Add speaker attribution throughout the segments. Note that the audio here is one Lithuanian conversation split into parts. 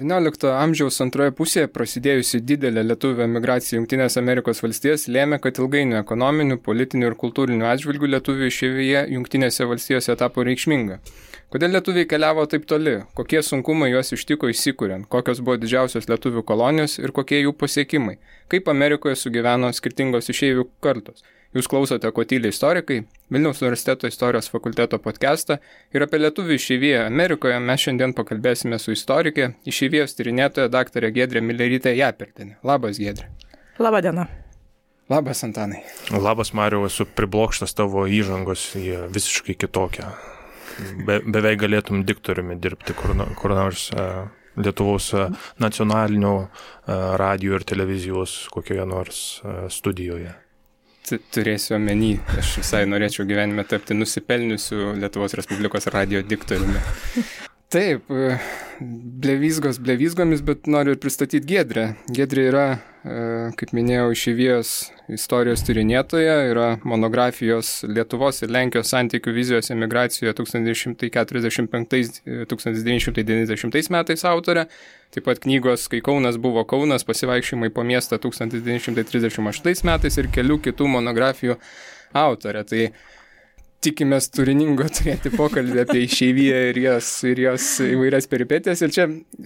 Speaker 1: XIX amžiaus antroje pusėje prasidėjusi didelė lietuvių emigracija į Jungtinės Amerikos valstijas lėmė, kad ilgainiui ekonominių, politinių ir kultūrinių atžvilgių lietuvių išeivyje Jungtinėse valstijose tapo reikšminga. Kodėl lietuviai keliavo taip toli? Kokie sunkumai juos ištiko įsikuriant? Kokios buvo didžiausios lietuvių kolonijos ir kokie jų pasiekimai? Kaip Amerikoje sugyveno skirtingos išeivių kartos? Jūs klausote Ko tyli istorikai, Vilniaus universiteto istorijos fakulteto podcastą ir apie lietuvių išeiviją Amerikoje mes šiandien pakalbėsime su istorikė, išeivijos tyrinėtoja daktarė Giedrė Milerytė Japertienė. Labas, Giedrė.
Speaker 2: Labą dieną.
Speaker 1: Labas, Antanai.
Speaker 3: Labas, Mariau, esu priblokštas tavo įžangos, jie visiškai kitokia. Beveik galėtum diktoriumi dirbti kur nors Lietuvos nacionalinio radijo ir televizijos kokioje nors studijoje.
Speaker 1: Turėsiu omeny, aš visai norėčiau gyvenime tapti nusipelniusiu Lietuvos Respublikos radijo diktoriumi. Taip, blevizgomis, bet noriu ir pristatyti Giedrę. Giedrė yra, kaip minėjau, išeivijos istorijos tyrinėtoja, yra monografijos Lietuvos ir Lenkijos santykių vizijos emigracijoje 1945-1990 metais autorė. Taip pat knygos Kai Kaunas buvo Kaunas, pasivaikščiojimai po miestą 1938 metais ir kelių kitų monografijų autorė. Tai tikimės turiningo turėti pokalbį apie išeiviją ir jos įvairias peripetijas. Ir čia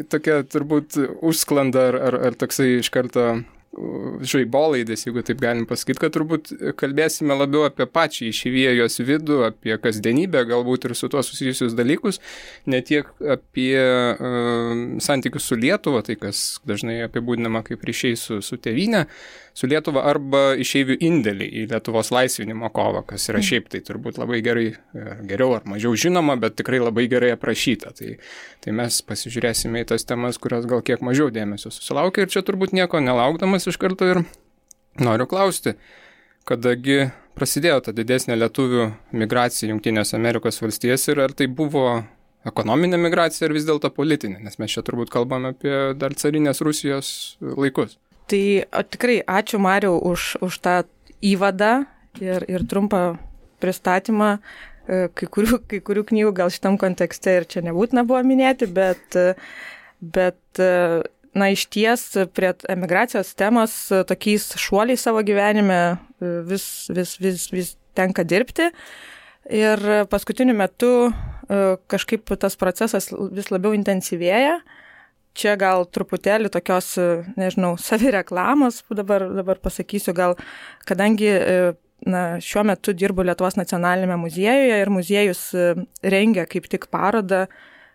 Speaker 1: tokia turbūt užsklanda ar toksai iš karto žaibolaidis, jeigu taip galim pasakyti, kad turbūt kalbėsime labiau apie pačią išeiviją, jos vidų, apie kasdienybę, galbūt ir su tuo susijusius dalykus, ne tiek apie santykius su Lietuva, tai kas dažnai apibūdinama kaip ryšiai su tėvyne, su Lietuva arba išeivių indėlį į Lietuvos laisvinimo kovą, kas yra šiaip tai turbūt labai geriau ar mažiau žinoma, bet tikrai labai gerai aprašyta. Tai mes pasižiūrėsime į tas temas, kurios gal kiek mažiau dėmesio susilaukia ir čia turbūt nieko nelaukdamas iš karto ir noriu klausti, kadagi prasidėjo ta didesnė lietuvių migracija Jungtinės Amerikos valstijas ir ar tai buvo ekonominė migracija ar vis dėlto politinė, nes mes čia turbūt kalbame apie dar carinės Rusijos laikus.
Speaker 2: Tai tikrai ačiū, Mariau, už tą įvadą ir trumpą pristatymą. Kai kurių knygų gal šitam kontekste ir čia nebūtina buvo minėti, bet iš ties prie emigracijos temos tokiais šuoliais savo gyvenime vis tenka dirbti. Ir paskutiniu metu kažkaip tas procesas vis labiau intensyvėja. Čia gal truputėlį tokios, savireklamos, dabar pasakysiu, gal kadangi šiuo metu dirbu Lietuvos nacionalinėme muziejuje ir muziejus rengia kaip tik parodą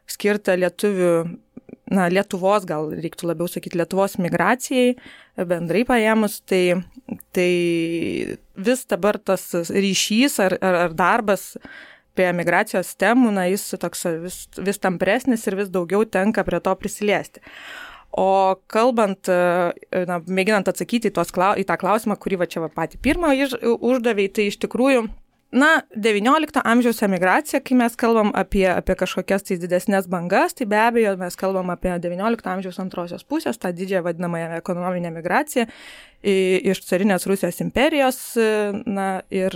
Speaker 2: skirtą Lietuvos, gal reiktų labiau sakyti, Lietuvos migracijai, bendrai paėmus, tai vis dabar tas ryšys ar darbas apie emigracijos temų, jis toks vis tampresnis ir vis daugiau tenka prie to prisiliesti. O kalbant, mėginant atsakyti į tą klausimą, kurį čia patį pirmą uždavė, tai iš tikrųjų, 19 amžiaus emigracija, kai mes kalbam apie kažkokias tai didesnės bangas, tai be abejo mes kalbam apie 19 amžiaus antrosios pusės, tą didžiąją vadinamąją ekonominę migraciją iš carinės Rusijos imperijos, ir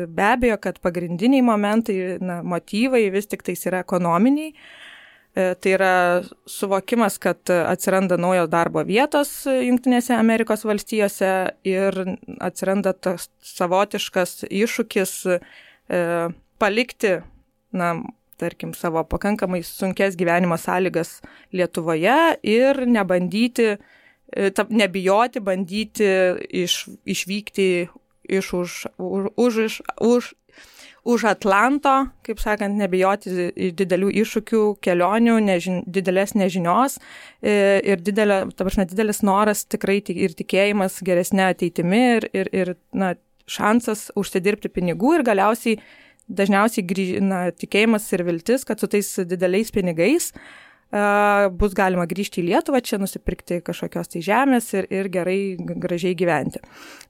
Speaker 2: be abejo, kad pagrindiniai momentai, motyvai vis tik tais yra ekonominiai. Tai yra suvokimas, kad atsiranda naujos darbo vietos Jungtinėse Amerikos valstijose ir atsiranda tas savotiškas iššūkis palikti, tarkim, savo pakankamai sunkes gyvenimo sąlygas Lietuvoje ir nebijoti, bandyti išvykti už Atlanto, kaip sakant, nebijoti didelių iššūkių, kelionių, didelės nežinios ir didelis noras tikrai ir tikėjimas geresnė ateitimi ir šansas užsidirbti pinigų ir galiausiai dažniausiai tikėjimas ir viltis, kad su tais dideliais pinigais bus galima grįžti į Lietuvą, čia nusipirkti kažkokios tai žemės ir gerai, gražiai gyventi.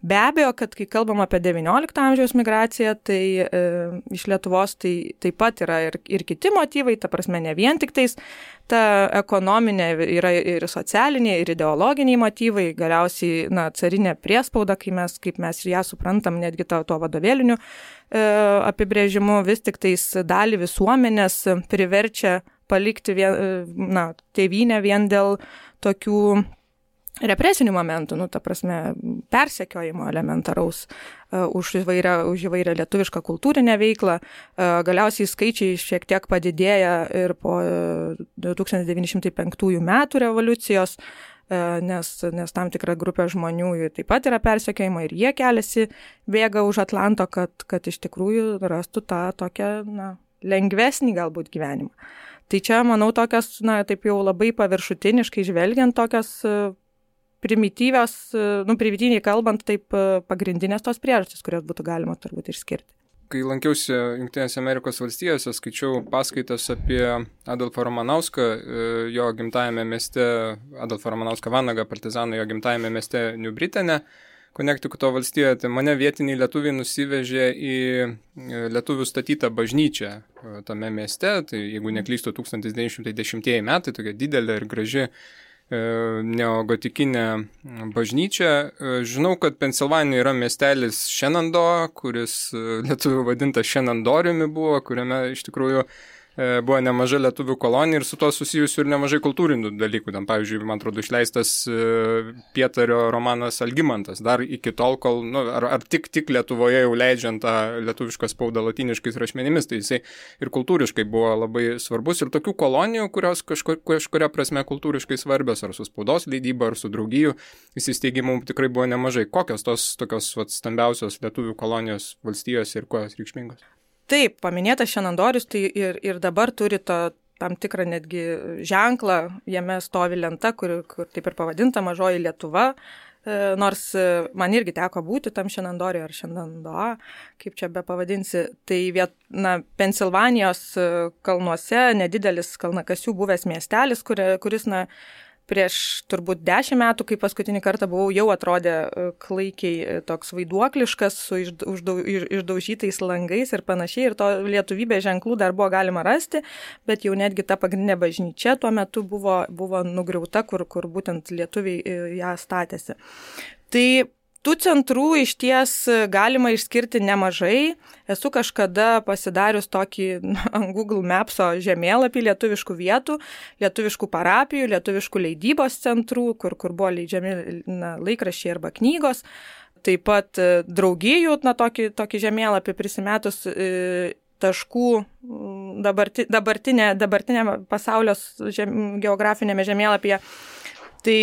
Speaker 2: Be abejo, kad kai kalbam apie 19 amžiaus migraciją, tai iš Lietuvos tai taip pat yra ir kiti motyvai, ta prasme ne vien tik tais ta ekonominė, yra ir socialiniai, ir ideologiniai motyvai, galiausiai carinė priespauda, kaip mes ją suprantam, netgi tuo vadovėliniu apibrėžimu, vis tik tais dalį visuomenės priverčia palikti tėvynę vien dėl tokių represinių momentų, ta prasme, persekiojimo elementaraus už įvairią lietuvišką kultūrinę veiklą. Galiausiai skaičiai šiek tiek padidėja ir po 1905 metų revoliucijos, nes tam tikra grupė žmonių taip pat yra persekiojama ir jie keliasi, bėga už Atlanto, kad iš tikrųjų rastų tą tokią lengvesnį galbūt gyvenimą. Tai čia, manau, tokios, taip jau labai paviršutiniškai žvelgiant, tokios primityviai kalbant, taip pagrindinės tos priežastys, kurios būtų galima turbūt išskirti.
Speaker 1: Kai lankiausi Jungtinėse Amerikos valstijose, skaičiau paskaitas apie Adolfą Ramanauską, jo gimtajame mieste, Adolfą Ramanauską Vanagą, partizaną jo gimtajame mieste New Britane, Konektikuto valstijoje. Tai mane vietiniai lietuviai nusivežė į lietuvių statytą bažnyčią tame mieste, tai jeigu neklystu 1910 metai, tokia didelė ir graži neogotikinė bažnyčia. Žinau, kad Pensilvanijoje yra miestelis Shenandoah, kuris lietuvių vadintas Shenandoriumi buvo, kuriame iš tikrųjų buvo nemaža lietuvių kolonija ir su to susijusių ir nemažai kultūrinių dalykų. Tam, pavyzdžiui, man atrodo, išleistas Pietario romanas Algimantas. Dar iki tol, kol, ar tik Lietuvoje jau leidžiant tą lietuvišką spaudą latiniškais rašmenimis, tai jisai ir kultūriškai buvo labai svarbus. Ir tokių kolonijų, kurios kažkuria prasme kultūriškai svarbios, ar su spaudos leidyba, ar su draugijų įsisteigimu tikrai buvo nemažai. Kokios tos tokios stambiausios lietuvių kolonijos valstijose ir kuo jos reikšmingos?
Speaker 2: Taip, paminėtas Shenandoris, tai ir dabar turi tam tikrą netgi ženklą, jame stovi lenta, kur taip ir pavadinta Mažoji Lietuva, nors man irgi teko būti tam Shenandoriui ar Shenandoah, kaip čia be pavadinsi, tai Pensilvanijos kalnuose nedidelis kalnakasių buvęs miestelis, kuris prieš turbūt 10 metų, kai paskutinį kartą buvau, jau atrodė klaikiai toks vaiduokliškas, su išdaužytais langais ir panašiai, ir to lietuvybės ženklų dar buvo galima rasti, bet jau netgi ta pagrindinė bažnyčia tuo metu buvo nugriauta, kur būtent lietuviai ją statėsi. Tai tų centrų iš ties galima išskirti nemažai. Esu kažkada pasidarius tokį ant Google Mapso žemėlapį lietuviškų vietų, lietuviškų parapijų, lietuviškų leidybos centrų, kur buvo leidžiami laikraščiai arba knygos. Taip pat draugijų, tokį žemėlapį prisimetus taškų dabartinė pasaulio geografinėme žemėlapyje. Tai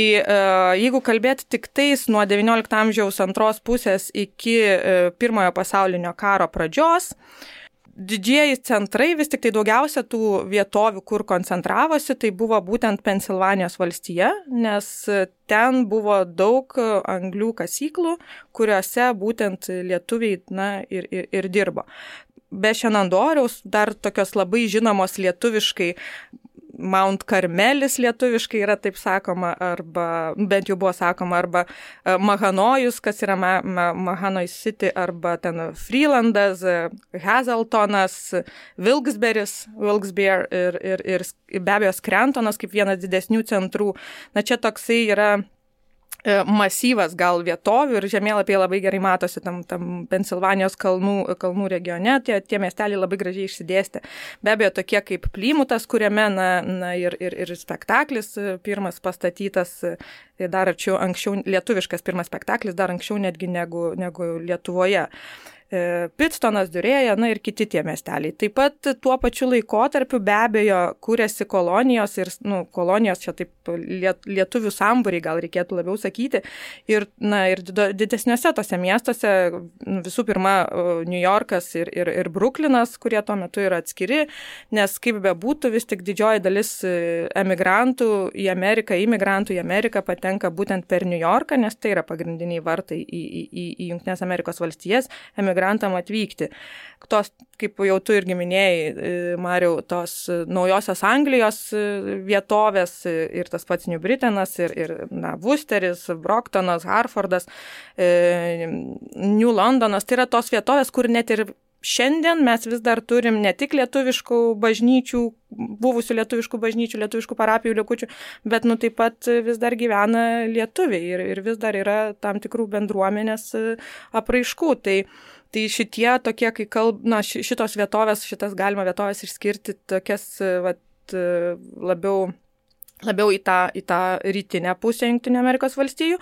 Speaker 2: jeigu kalbėti tik tais nuo XIX amžiaus antros pusės iki Pirmojo pasaulinio karo pradžios, didžieji centrai, vis tik tai daugiausia tų vietovių, kur koncentravosi, tai buvo būtent Pensilvanijos valstija, nes ten buvo daug anglių kasyklų, kuriuose būtent lietuviai ir dirbo. Be Shenandoriaus dar tokios labai žinomos lietuviškai Mount Karmelis lietuviškai yra taip sakoma, arba bent jau buvo sakoma, arba Mahanojus, kas yra Mahanoj City, arba ten Freelandas, Hazeltonas, Wilkes-Barre ir be abejo Scrantonas kaip vienas didesnių centrų. Čia toksai yra masyvas gal vietovių ir žemėlapyje labai gerai matosi tam Pensilvanijos kalnų regione, tie miesteliai labai gražiai išsidėstė. Be abejo, tokie kaip Plymutas, kuriame ir spektaklis pirmas pastatytas, dar anksčiau lietuviškas pirmas spektaklis, dar anksčiau netgi negu Lietuvoje. Pitstonas, Diurėja, ir kiti tie miesteliai. Taip pat tuo pačiu laikotarpiu be abejo kūrėsi kolonijos ir kolonijos čia taip lietuvių sambūriai gal reikėtų labiau sakyti ir didesniuose tose miestuose visų pirma New Yorkas ir Bruklinas, kurie tuo metu yra atskiri, nes kaip bebūtų vis tik didžioji dalis imigrantų į Ameriką patenka būtent per New Yorką, nes tai yra pagrindiniai vartai į Jungtinės Amerikos valstijas emigrantam atvykti. Tos, kaip jau tu irgi minėjai, Mariau, tos naujosios Anglijos vietovės ir tas pats New Britanas ir Worcesteris, Brocktonas, Harfordas, New Londonas, tai yra tos vietovės, kur net ir šiandien mes vis dar turim ne tik lietuviškų bažnyčių, buvusių lietuviškų bažnyčių, lietuviškų parapijų likučių, bet taip pat vis dar gyvena lietuviai ir vis dar yra tam tikrų bendruomenės apraiškų. Tai šitie tokie, kai šitos vietovės, šitas galima vietovės išskirti tokias galbūt labiau į tą rytinę pusę Jungtinių Amerikos valstijų.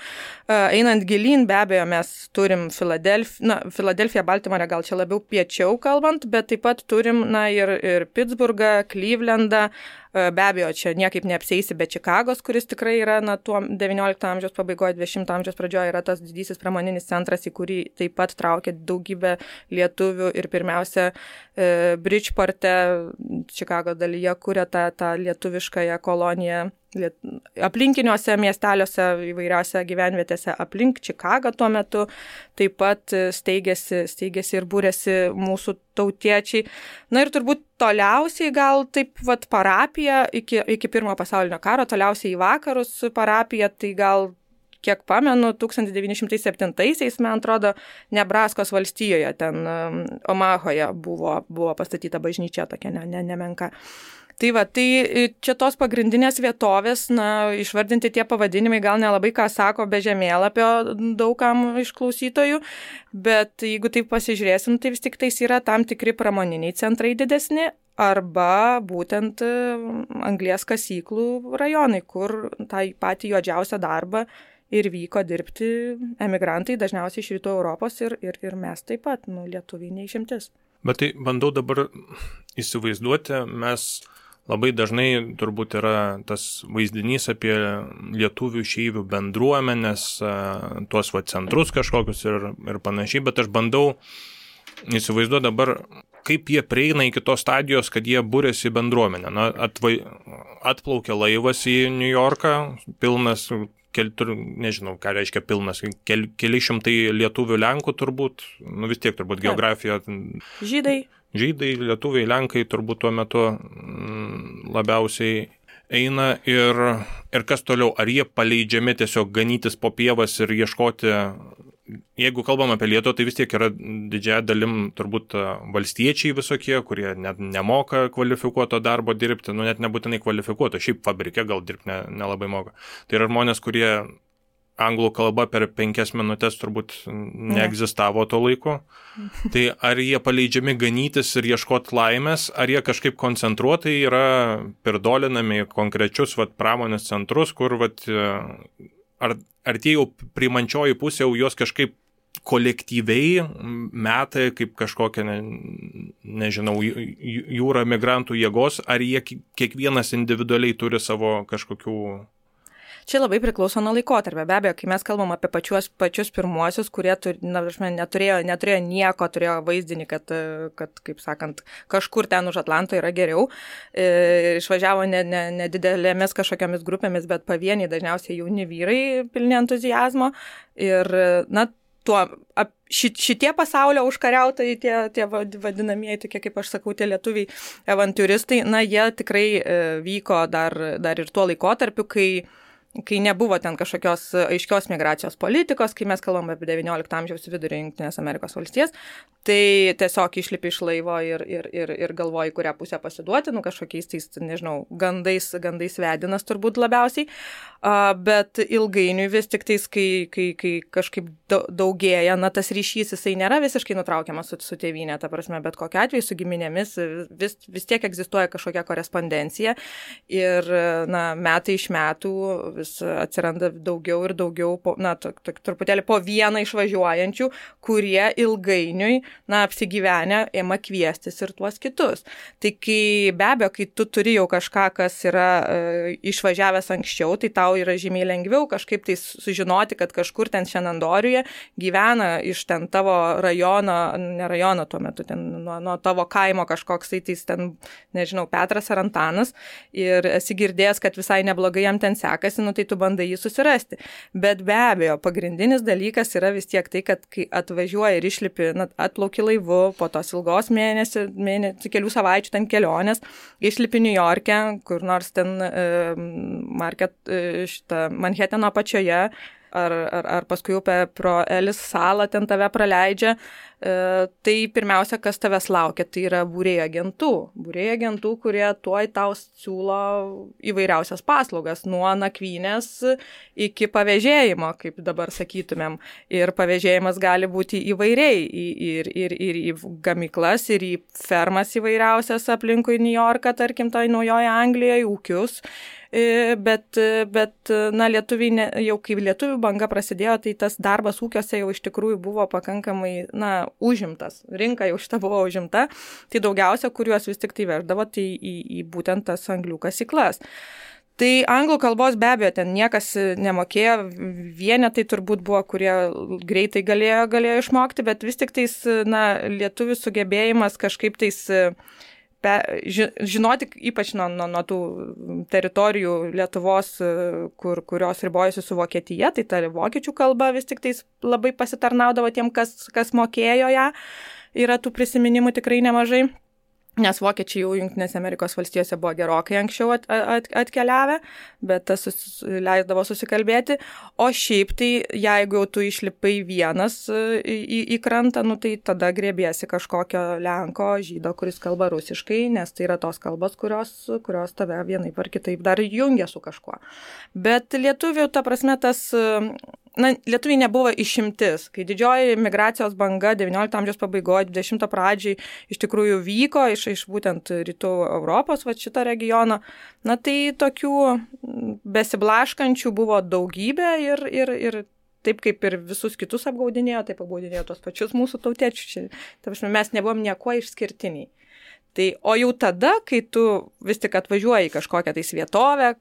Speaker 2: Einant gilyn, be abejo, mes turim Filadelfiją, Baltimorę, gal čia labiau piečiau kalbant, bet taip pat turim ir Pittsburghą, Clevelandą. Be abejo, čia niekaip neapsieisi be Čikagos, kuris tikrai yra tuo 19 amžiaus pabaigoje, 20 amžiaus pradžioje yra tas didysis pramoninis centras, į kurį taip pat traukia daugybę lietuvių ir pirmiausia Bridgeporte, Čikagos dalyje, kuria tą lietuviškąją koloniją aplinkiniuose miesteliuose, įvairiausiose gyvenvietėse aplink Čikagą tuo metu, taip pat steigėsi ir būrėsi mūsų tautiečiai. Ir turbūt toliausiai gal taip parapija iki Pirmojo pasaulinio karo, toliausiai į vakarus parapija, tai gal kiek pamenu, 1907-aisiais, man atrodo, Nebraskos valstijoje, ten Omahoje buvo pastatyta bažnyčia tokia nemenka. Tai čia tos pagrindinės vietovės, išvardinti tie pavadinimai gal nelabai ką sako be žemėlapio daugam iš klausytojų, bet jeigu taip pasižiūrėsim, tai vis tik tais yra tam tikri pramoniniai centrai didesni arba būtent anglies kasyklų rajonai, kur tą patį juodžiausią darbą ir vyko dirbti emigrantai, dažniausiai iš Rytų Europos ir mes taip pat, lietuviai neišimtis. Bet
Speaker 3: tai bandau dabar įsivaizduoti, mes labai dažnai turbūt yra tas vaizdinys apie lietuvių išeivių bendruomenės, tuos centrus kažkokius ir panašiai, bet aš bandau įsivaizduoti dabar, kaip jie prieina iki tos stadijos, kad jie būrėsi į bendruomenę. Atplaukia laivas į New Yorką, pilnas, nežinau, ką reiškia pilnas, keli šimtai lietuvių Lenkų turbūt, vis tiek turbūt geografija. Žydai, lietuviai, Lenkai turbūt tuo metu labiausiai eina ir kas toliau, ar jie paleidžiami tiesiog ganytis po pievas ir ieškoti, jeigu kalbam apie Lietuvą, tai vis tiek yra didžiąją dalim turbūt valstiečiai visokie, kurie net nemoka kvalifikuoto darbo dirbti, net nebūtinai kvalifikuoto, šiaip fabrike gal dirbti nelabai moka. Tai yra žmonės, kurie anglų kalba per 5 minutės turbūt neegzistavo to laiko. Tai ar jie paleidžiami ganytis ir ieškoti laimės, ar jie kažkaip koncentruotai yra pirdolinami į konkrečius pramonės centrus, kur ar tie jau priimančioji pusė jau jos kažkaip kolektyviai metai kaip kažkokia, nežinau, jūra migrantų jėgos, ar jie kiekvienas individualiai turi savo kažkokių.
Speaker 2: Čia labai priklauso nuo laikotarpio. Be abejo, kai mes kalbam apie pačius pirmuosius, kurie neturėjo nieko, turėjo vaizdinį, kad, kaip sakant, kažkur ten už Atlanto yra geriau. Išvažiavo nedidelėmis kažkokiamis grupėmis, bet pavieniai, dažniausiai jauni vyrai pilni entuzijazmo. Ir, šitie pasaulio užkariautojai, tie vadinamieji, tokie, kaip aš sakau, tie lietuviai avantiūristai, jie tikrai vyko dar ir tuo laikotarpiu, kai nebuvo ten kažkokios aiškios migracijos politikos, kai mes kalbam apie 19 amžiaus vidurį Jungtinės Amerikos valstijas, tai tiesiog išlipi iš laivo ir galvoji, kurią pusę pasiduoti, kažkokiais tais, nežinau, gandais vedinas turbūt labiausiai, bet ilgainiui vis tik tais, kai kažkaip daugėja, tas ryšys, jisai nėra visiškai nutraukiamas su tėvynė, ta prasme, bet kokiu atveju su giminėmis vis tiek egzistuoja kažkokia korespondencija ir, metai iš metų vis atsiranda daugiau ir daugiau, truputėlį po vieną išvažiuojančių, kurie ilgainiui, apsigyvenę, ėma kviestis ir tuos kitus. Tai be abejo, kai tu turi jau kažką, kas yra išvažiavęs anksčiau, tai tau yra žymiai lengviau kažkaip tai sužinoti, kad kažkur ten Šenandoriuje gyvena iš ten tavo rajono, ne rajono tuo metu, ten nuo tavo kaimo kažkoks, tai ten, nežinau, Petras ar Antanas ir esi girdėjęs, kad visai neblogai jam ten sekasi, tai tu bandai jį susirasti. Bet be abejo, pagrindinis dalykas yra vis tiek tai, kad kai atvažiuoji ir išlipi, atplauki laivu, po tos ilgos kelių savaičių ten kelionės, išlipi New York'e, kur nors ten Manhatano apačioje, ar paskui upę pro Elis salą ten tave praleidžia, tai pirmiausia, kas tavęs laukia, tai yra būrėjų agentų, kurie tuoj tau siūlo įvairiausias paslaugas, nuo nakvynės iki pavėžėjimo, kaip dabar sakytumėm. Ir pavėžėjimas gali būti įvairiai, ir į gamyklas, ir į fermas įvairiausias aplinkui New Yorką, tarkim, tai Naujoje Anglijoje, ūkius. Bet na, lietuviai, jau kai lietuvių banga prasidėjo, tai tas darbas ūkiuose jau iš tikrųjų buvo pakankamai, na, užimtas. Rinka jau šita buvo užimta, tai daugiausia, kuriuos vis tik tai veždavo, tai į būtent tas anglių kasyklas. Tai anglų kalbos be abejo ten niekas nemokėjo, vienetai turbūt buvo, kurie greitai galėjo išmokti, bet vis tik tais, na, lietuvių sugebėjimas kažkaip tais žinoti, ypač nuo tų teritorijų Lietuvos, kurios ribojasi su Vokietija, tai ta vokiečių kalba vis tik tais labai pasitarnaudavo tiem, kas mokėjo ją. Yra tų prisiminimų tikrai nemažai. Nes vokiečiai jau Jungtinėse Amerikos valstijose buvo gerokai anksčiau atkeliavę, bet tas leisdavo susikalbėti. O šiaip tai, jeigu jau tu išlipai vienas į krantą, nu, tai tada grėbiesi kažkokio lenko, žydo, kuris kalba rusiškai, nes tai yra tos kalbos, kurios tave vienaip ar kitaip dar jungia su kažkuo. Bet lietuvių, ta prasme, lietuviai nebuvo išimtis. Kai didžioji migracijos banga 19 amžiaus pabaigoje, 20 pradžiai iš tikrųjų vyko iš būtent rytų Europos, šito regiono, na tai tokių besiblaškančių buvo daugybė ir taip kaip ir visus kitus apgaudinėjo, taip apgaudinėjo tos pačius mūsų tautiečius. Mes nebuvom niekuo išskirtiniai. Tai, o jau tada, kai tu vis tik atvažiuoji į kažkokią tais vietovę,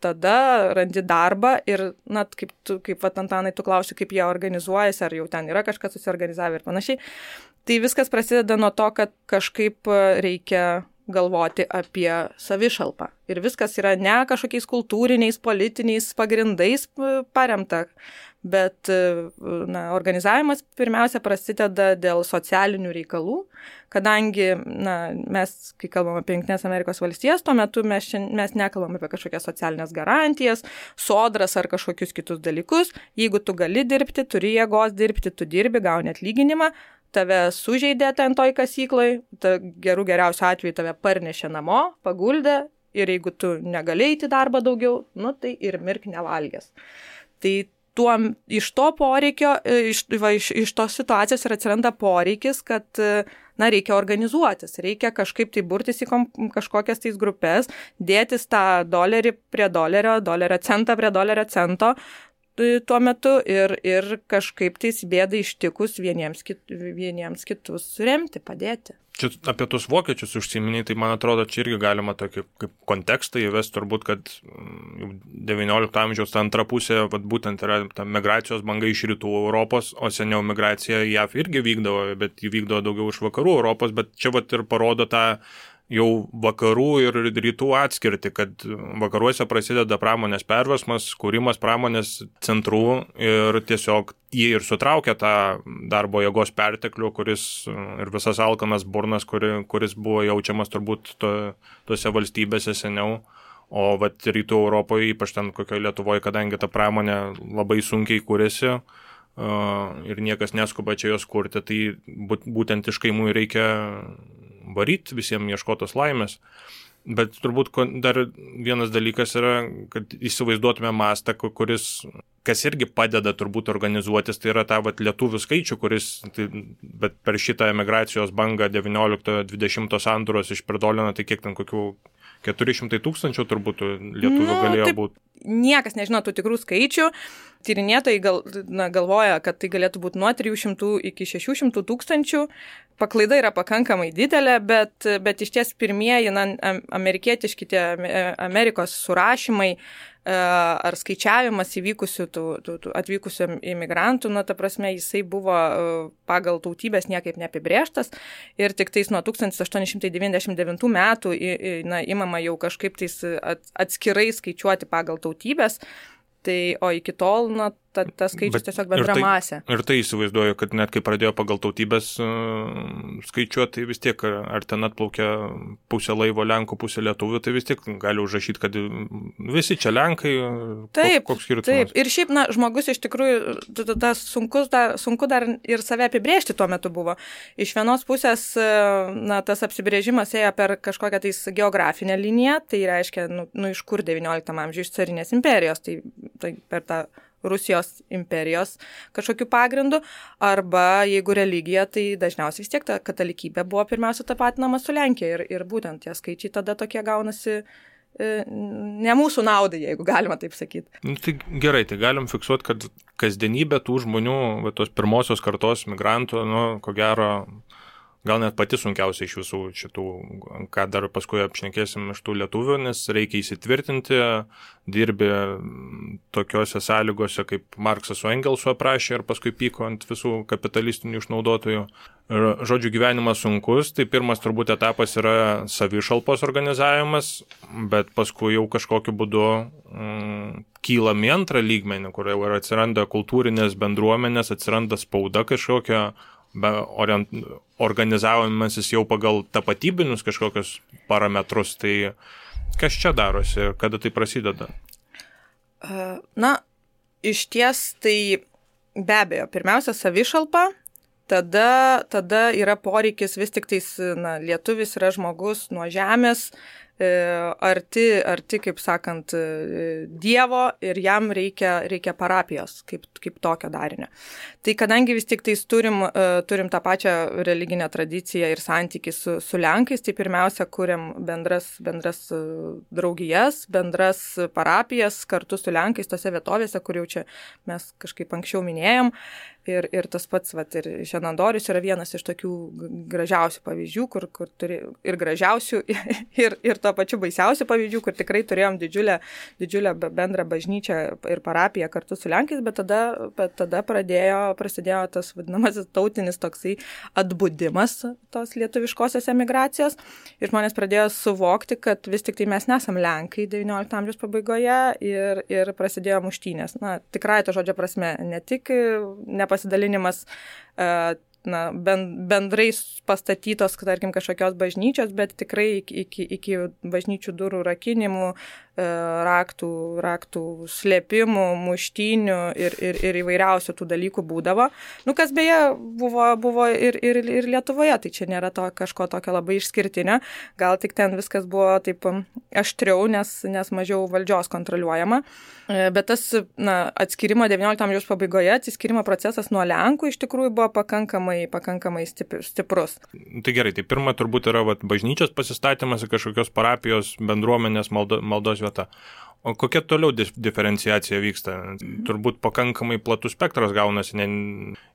Speaker 2: tada randi darbą ir, na, kaip Antanai, tu klausi, kaip jie organizuojasi, ar jau ten yra kažkas susiorganizavę ir panašiai. Tai viskas prasideda nuo to, kad kažkaip reikia galvoti apie savišalpą. Ir viskas yra ne kažkokiais kultūriniais, politiniais pagrindais paremta, bet organizavimas pirmiausia prasideda dėl socialinių reikalų, kadangi mes, kai kalbam apie Jungtinės Amerikos valstijas, tuo metu mes nekalbam apie kažkokias socialinės garantijas, sodras ar kažkokius kitus dalykus. Jeigu tu gali dirbti, turi jėgos dirbti, tu dirbi, gauni atlyginimą, tave sužeidė ten toj kasykloj, geriausiu atveju tave parnešė namo, paguldė ir jeigu tu negali eiti darbą daugiau, tai ir mirk nevalgęs. Tai iš to poreikio, iš tos situacijos ir atsiranda poreikis, kad reikia organizuotis, reikia kažkaip tai burtis į kažkokias tais grupės, dėtis tą $1 prie $1, centą prie $1 tuo metu ir kažkaip tais bėdai ištikus vieniems kitus remti, padėti.
Speaker 3: Čia apie tus vokiečius užsiminiai, tai man atrodo, čia irgi galima tokį kaip kontekstą įvesti, turbūt, kad 19 amžiaus ta antra pusė, būtent yra ta migracijos banga iš rytų Europos, o seniau migracija JAV irgi vykdavo, bet jį vykdavo daugiau iš vakarų Europos, bet čia ir parodo tą jau vakarų ir rytų atskirti, kad vakaruose prasideda pramonės perversmas, kūrimas pramonės centrų ir tiesiog jie ir sutraukia tą darbo jėgos perteklių, kuris ir visas alkanas burnas, kuris buvo jaučiamas turbūt tose valstybėse seniau. O rytų Europoje, ypač ten kokioje Lietuvoje, kadangi ta pramonė labai sunkiai kūrėsi ir niekas neskuba čia jos kurti, tai būtent iš kaimų reikia varyti, visiems ieškotos laimės. Bet turbūt dar vienas dalykas yra, kad įsivaizduotume mastą, kas irgi padeda turbūt organizuotis, tai yra ta lietuvių skaičių, bet per šitą emigracijos bangą 19-20 sandūros išperdolino, tai kiek ten kokių 400 000 turbūt lietuvių galėjo būti.
Speaker 2: Niekas nežino tų tikrų skaičių. Tyrinėtojai galvoja, kad tai galėtų būti nuo 300 iki 600 000. Paklaida yra pakankamai didelė, bet iš ties pirmieji amerikietiški tie Amerikos surašymai ar skaičiavimas įvykusių atvykusių imigrantų, ta prasme, jisai buvo pagal tautybės niekaip neapibrėžtas ir tik tais nuo 1899 metų imama jau kažkaip tais atskirai skaičiuoti pagal tautybės. Tai, o iki tol, tas skaičius tiesiog bendra masė.
Speaker 3: Ir tai įsivaizduoju, kad net kai pradėjo pagal tautybės skaičiuoti, tai vis tiek, ar ten atplaukia pusė laivo Lenkų, pusė lietuvių, tai vis tiek gali užrašyti, kad visi čia Lenkai, koks skirtumas.
Speaker 2: Taip, ir šiaip, žmogus iš tikrųjų, sunku dar ir save apibrėžti tuo metu buvo. Iš vienos pusės, tas apsibrėžimas ėjo per kažkokią tais geografinę liniją, tai reiškia, iš kur 19 amžiuje, iš carinės imperijos, tai per tą Rusijos imperijos kažkokiu pagrindu, arba jeigu religija, tai dažniausiai vis tiek ta katalikybė buvo pirmiausia tapatinama su Lenkija ir būtent tie skaičiai tada tokie gaunasi ne mūsų naudai, jeigu galima taip sakyti.
Speaker 3: Tai gerai, tai galim fiksuoti, kad kasdienybė tų žmonių, tos pirmosios kartos migrantų, ko gero, gal net pati sunkiausia iš visų šitų, ką dar paskui apšnekėsim iš tų lietuvių, nes reikia įsitvirtinti, dirbi tokiose sąlygose, kaip Marksas su Engelsu aprašė ir paskui pyko ant visų kapitalistinių išnaudotojų. Žodžiu, gyvenimas sunkus, tai pirmas turbūt etapas yra savišalpos organizavimas, bet paskui jau kažkokiu būdu kylam į antrą lygmenį, kur jau atsiranda kultūrinės bendruomenės, atsiranda spauda kažkokia, organizavimasis jau pagal tapatybinius kažkokius parametrus, tai kas čia darosi ir kada tai prasideda?
Speaker 2: Iš ties tai be abejo, pirmiausia savišalpa, tada yra poreikis vis tik tais, lietuvis yra žmogus nuo žemės, arti, kaip sakant, Dievo ir jam reikia parapijos kaip tokio darinio. Tai kadangi vis tik tais turim tą pačią religinę tradiciją ir santykį su Lenkais, tai pirmiausia kuriam bendras draugijas, bendras parapijas kartu su Lenkais tose vietovėse, kur jau čia mes kažkaip anksčiau minėjom. Ir tas pats, ir Šenandorius yra vienas iš tokių gražiausių pavyzdžių, kur turi ir gražiausių, ir to pačiu baisiausių pavyzdžių, kur tikrai turėjom didžiulę bendrą bažnyčią ir parapiją kartu su Lenkais, bet tada prasidėjo tas vadinamasis tautinis toksai atbudimas tos lietuviškosios emigracijos ir žmonės pradėjo suvokti, kad vis tik tai mes nesam Lenkai 19 amžiaus pabaigoje ir prasidėjo muštynės. Tikrai to žodžio prasme, ne tik pasidalinimas bendrai pastatytos, tarkim, kažkokios bažnyčios, bet tikrai iki bažnyčių durų rakinimų, raktų slėpimų, muštynių ir įvairiausių tų dalykų būdavo. Kas beje buvo ir Lietuvoje, tai čia nėra kažko tokio labai išskirtinio, gal tik ten viskas buvo taip aštriau, nes mažiau valdžios kontroliuojama. Bet tas atskirimo 19 amžiaus pabaigoje, atsiskirimo procesas nuo Lenkų iš tikrųjų buvo pakankamai stiprus.
Speaker 3: Tai gerai, tai pirma turbūt yra bažnyčios pasistatymas ir kažkokios parapijos bendruomenės maldos vieta. O kokia toliau diferenciacija vyksta? Turbūt pakankamai platus spektras gaunasi,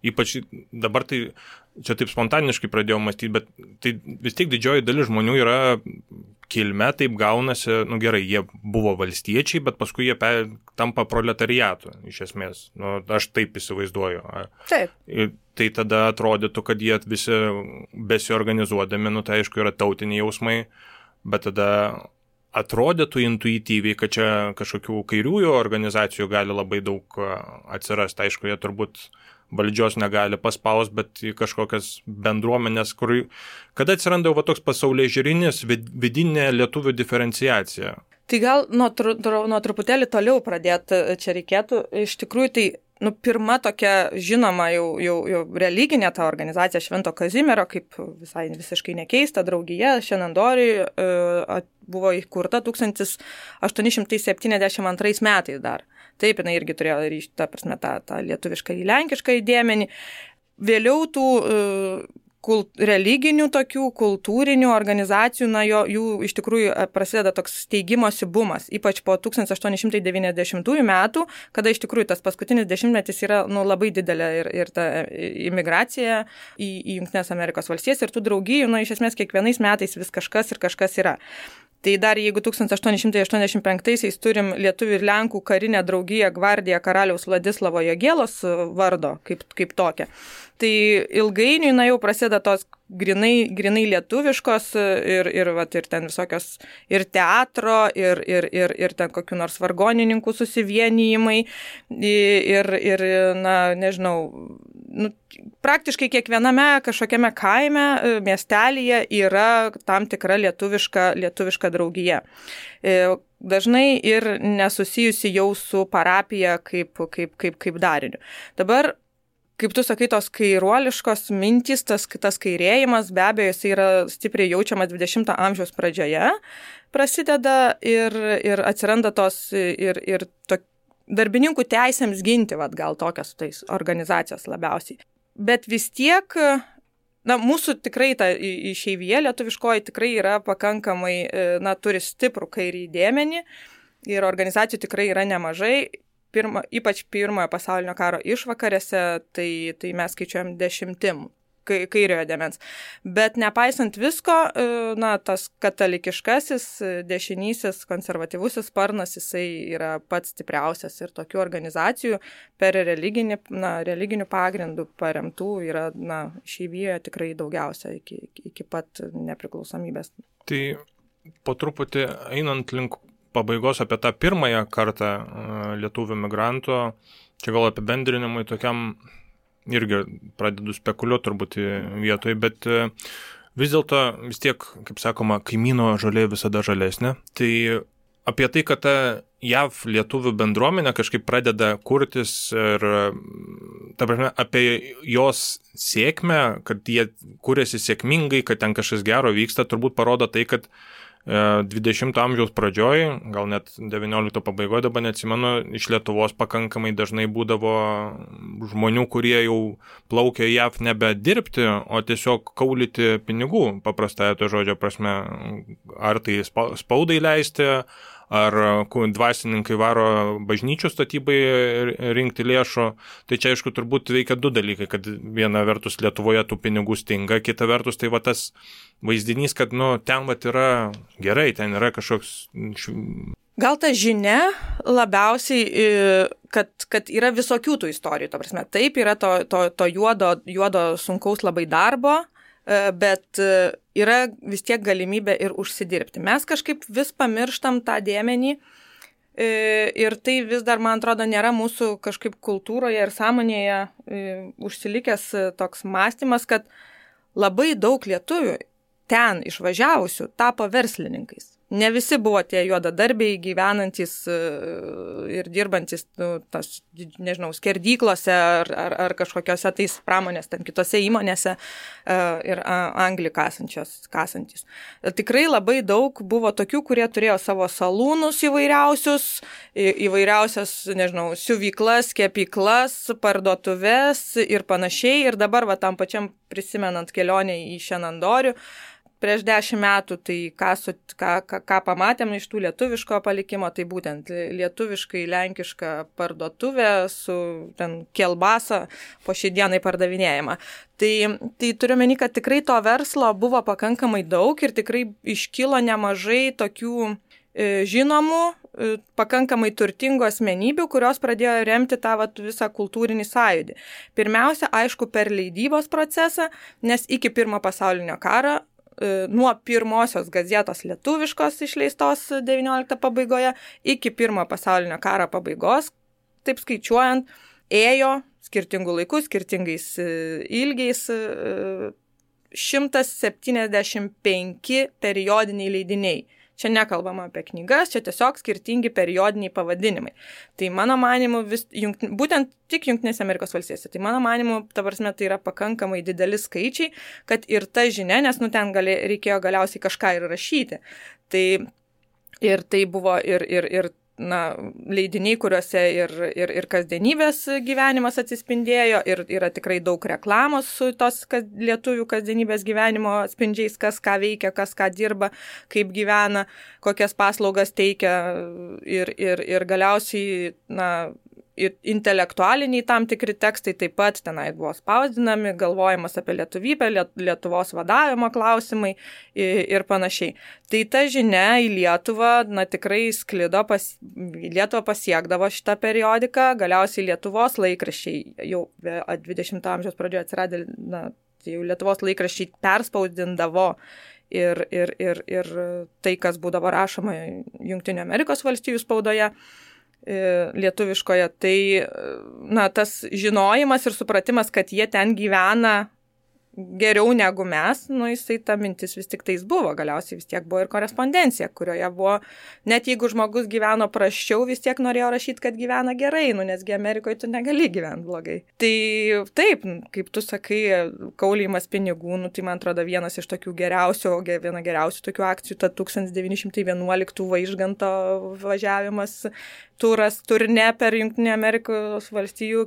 Speaker 3: ypač dabar tai čia taip spontaniškai pradėjau mąstyti, bet tai vis tiek didžioji dalis žmonių yra kilme, taip gaunasi, gerai, jie buvo valstiečiai, bet paskui jie tampa proletariatu, iš esmės. Aš taip įsivaizduoju.
Speaker 2: Taip.
Speaker 3: Tai tada atrodytų, kad jie visi besiorganizuodami, tai aišku yra tautiniai jausmai, bet tada atrodytų intuityviai, kad čia kažkokių kairiųjų organizacijų gali labai daug atsirasti. Aišku, jie turbūt valdžios negali paspaus, bet į kažkokias bendruomenės, kada atsiranda jau toks pasaulėžiūrinis vidinė lietuvių diferenciacija.
Speaker 2: Tai gal nuo truputėlį toliau pradėti čia reikėtų. Iš tikrųjų, tai pirma tokia žinoma jau religinė ta organizacija Švento Kazimiero, kaip visiškai nekeista, draugija Šenandoriui buvo įkurta 1872 metais dar. Taip, jinai irgi turėjo ryšti, tą lietuvišką į lenkišką įdėmenį. Vėliau tų religinių tokių kultūrinių organizacijų, jų iš tikrųjų prasideda toks steigimosi bumas, ypač po 1890 metų, kada iš tikrųjų tas paskutinis dešimtmetis yra labai didelė ir ta imigracija į Jungtines Amerikos valstijas ir tų draugijų, iš esmės kiekvienais metais vis kažkas yra. Tai dar jeigu 1885-aisiais turim lietuvių ir lenkų karinę draugiją Gvardiją karaliaus Vladislavo Jogėlos vardo kaip tokią, Tai ilgainiui, jau prasideda tos grinai lietuviškos ir ten visokios ir teatro, ir ten kokių nors vargonininkų susivienijimai ir nežinau, praktiškai kiekviename kažkokiame kaime, miestelyje yra tam tikra lietuviška draugija. Dažnai ir nesusijusi jau su parapija kaip dariniu. Dabar, kaip tu sakai, tos kairuoliškos mintys, tas kairėjimas, be abejo, jis yra stipriai jaučiamas 20 amžiaus pradžioje, prasideda ir atsiranda tos ir darbininkų teisėms ginti, gal tokios tais organizacijos labiausiai. Bet vis tiek, mūsų tikrai ta išeivija lietuviškoji tikrai yra pakankamai, turi stiprų kairį dėmenį ir organizacijų tikrai yra nemažai. Ypač pirmojo pasaulinio karo išvakarėse, tai mes skaičiuojam 10 kairiojo dėmens. Bet nepaisant visko, tas katalikiškasis, dešinysis, konservatyvusis sparnas, jisai yra pats stipriausias ir tokių organizacijų per religinių pagrindų paremtų yra išeivijoje tikrai daugiausia iki pat nepriklausomybės.
Speaker 3: Tai po truputį einant link pabaigos apie tą pirmąją kartą lietuvių migrantų, čia gal apibendrinimui tokiam irgi pradedu spekuliuoti turbūt vietoje, bet vis dėlto vis tiek, kaip sakoma, kaimyno žolė visada žalesnė. Tai apie tai, kad ta JAV lietuvių bendruomenė kažkaip pradeda kurtis ir ta prasme, apie jos sėkmę, kad jie kūrėsi sėkmingai, kad ten kažkas gero vyksta, turbūt parodo tai, kad 20 amžiaus pradžioj, gal net 19 pabaigoje, dabar neatsimenu, iš Lietuvos pakankamai dažnai būdavo žmonių, kurie jau plaukė JAV nebe dirbti, o tiesiog kaulyti pinigų, paprastąją to žodžio prasme, ar tai spaudai leisti, ar dvasininkai varo bažnyčių statybai rinkti lėšų. Tai čia, aišku, turbūt veikia du dalykai, kad viena vertus Lietuvoje tų pinigų stinga, kita vertus tai tas vaizdinys, kad ten yra gerai, ten yra kažkoks...
Speaker 2: Gal ta žinia labiausiai, kad yra visokių tų istorijų, to prasme. Taip, yra to juodo sunkaus labai darbo, bet yra vis tiek galimybė ir užsidirbti. Mes kažkaip vis pamirštam tą dėmenį ir tai vis dar, man atrodo, nėra mūsų kažkaip kultūroje ir sąmonėje užsilikęs toks mąstymas, kad labai daug lietuvių ten išvažiavusių tapo verslininkais. Ne visi buvo tie juodadarbiai gyvenantis ir dirbantis, skerdyklose ar kažkokiose tais pramonės, ten kitose įmonėse ir anglį kasantis. Tikrai labai daug buvo tokių, kurie turėjo savo salūnus įvairiausias, siuvyklas, kepyklas, parduotuves ir panašiai. Ir dabar tam pačiam prisimenant kelionę į Šenandorių, prieš 10 metų, tai ką pamatėm iš tų lietuviško palikimo, tai būtent lietuviškai lenkiška parduotuvė su ten kielbasa po šiai dienai pardavinėjama. Tai turiu meni, kad tikrai to verslo buvo pakankamai daug ir tikrai iškilo nemažai tokių žinomų, pakankamai turtingų asmenybių, kurios pradėjo remti tą visą kultūrinį sąjūdį. Pirmiausia, aišku, per leidybos procesą, nes iki pirmo pasaulinio karo nuo pirmosios gazetos lietuviškos išleistos 19 pabaigoje iki pirmo pasaulinio karo pabaigos, taip skaičiuojant, ėjo skirtingų laikų, skirtingais ilgiais 175 periodiniai leidiniai. Čia nekalbama apie knygas, čia tiesiog skirtingi periodiniai pavadinimai. Tai mano manimu, būtent tik Jungtinėse Amerikos valstijose, tai mano manimu, ta prasme, tai yra pakankamai dideli skaičiai, kad ir ta žinia, nes ten reikėjo galiausiai kažką ir rašyti. Ir tai buvo ir leidiniai, kuriuose ir kasdienybės gyvenimas atsispindėjo, ir yra tikrai daug reklamos su tos lietuvių kasdienybės gyvenimo atspindžiais, kas ką veikia, kas ką dirba, kaip gyvena, kokias paslaugas teikia ir galiausiai intelektualiniai tam tikri tekstai taip pat tenai buvo spausdinami, galvojimas apie lietuvybę, Lietuvos vadavimo klausimai ir panašiai. Tai ta žinia į Lietuvą, tikrai sklido, į Lietuvą pasiekdavo šitą periodiką, galiausiai Lietuvos laikraščiai jau 20 amžiaus pradžioje atsiradė, jau Lietuvos laikraščiai perspausdindavo ir tai, kas būdavo rašoma Jungtinių Amerikos valstijų spaudoje, lietuviškoje, tai tas žinojimas ir supratimas, kad jie ten gyvena geriau negu mes, jisai ta mintis vis tik tais buvo, galiausiai vis tiek buvo ir korespondencija, kurioje buvo, net jeigu žmogus gyveno prasčiau, vis tiek norėjo rašyti, kad gyvena gerai, nesgi Amerikoje tu negali gyventi blogai. Tai taip, kaip tu sakai, kaulijimas pinigų, tai man atrodo viena geriausių tokių akcijų, ta 1911 Vaižganto važiavimas, turne per Jungtinių Amerikos valstijų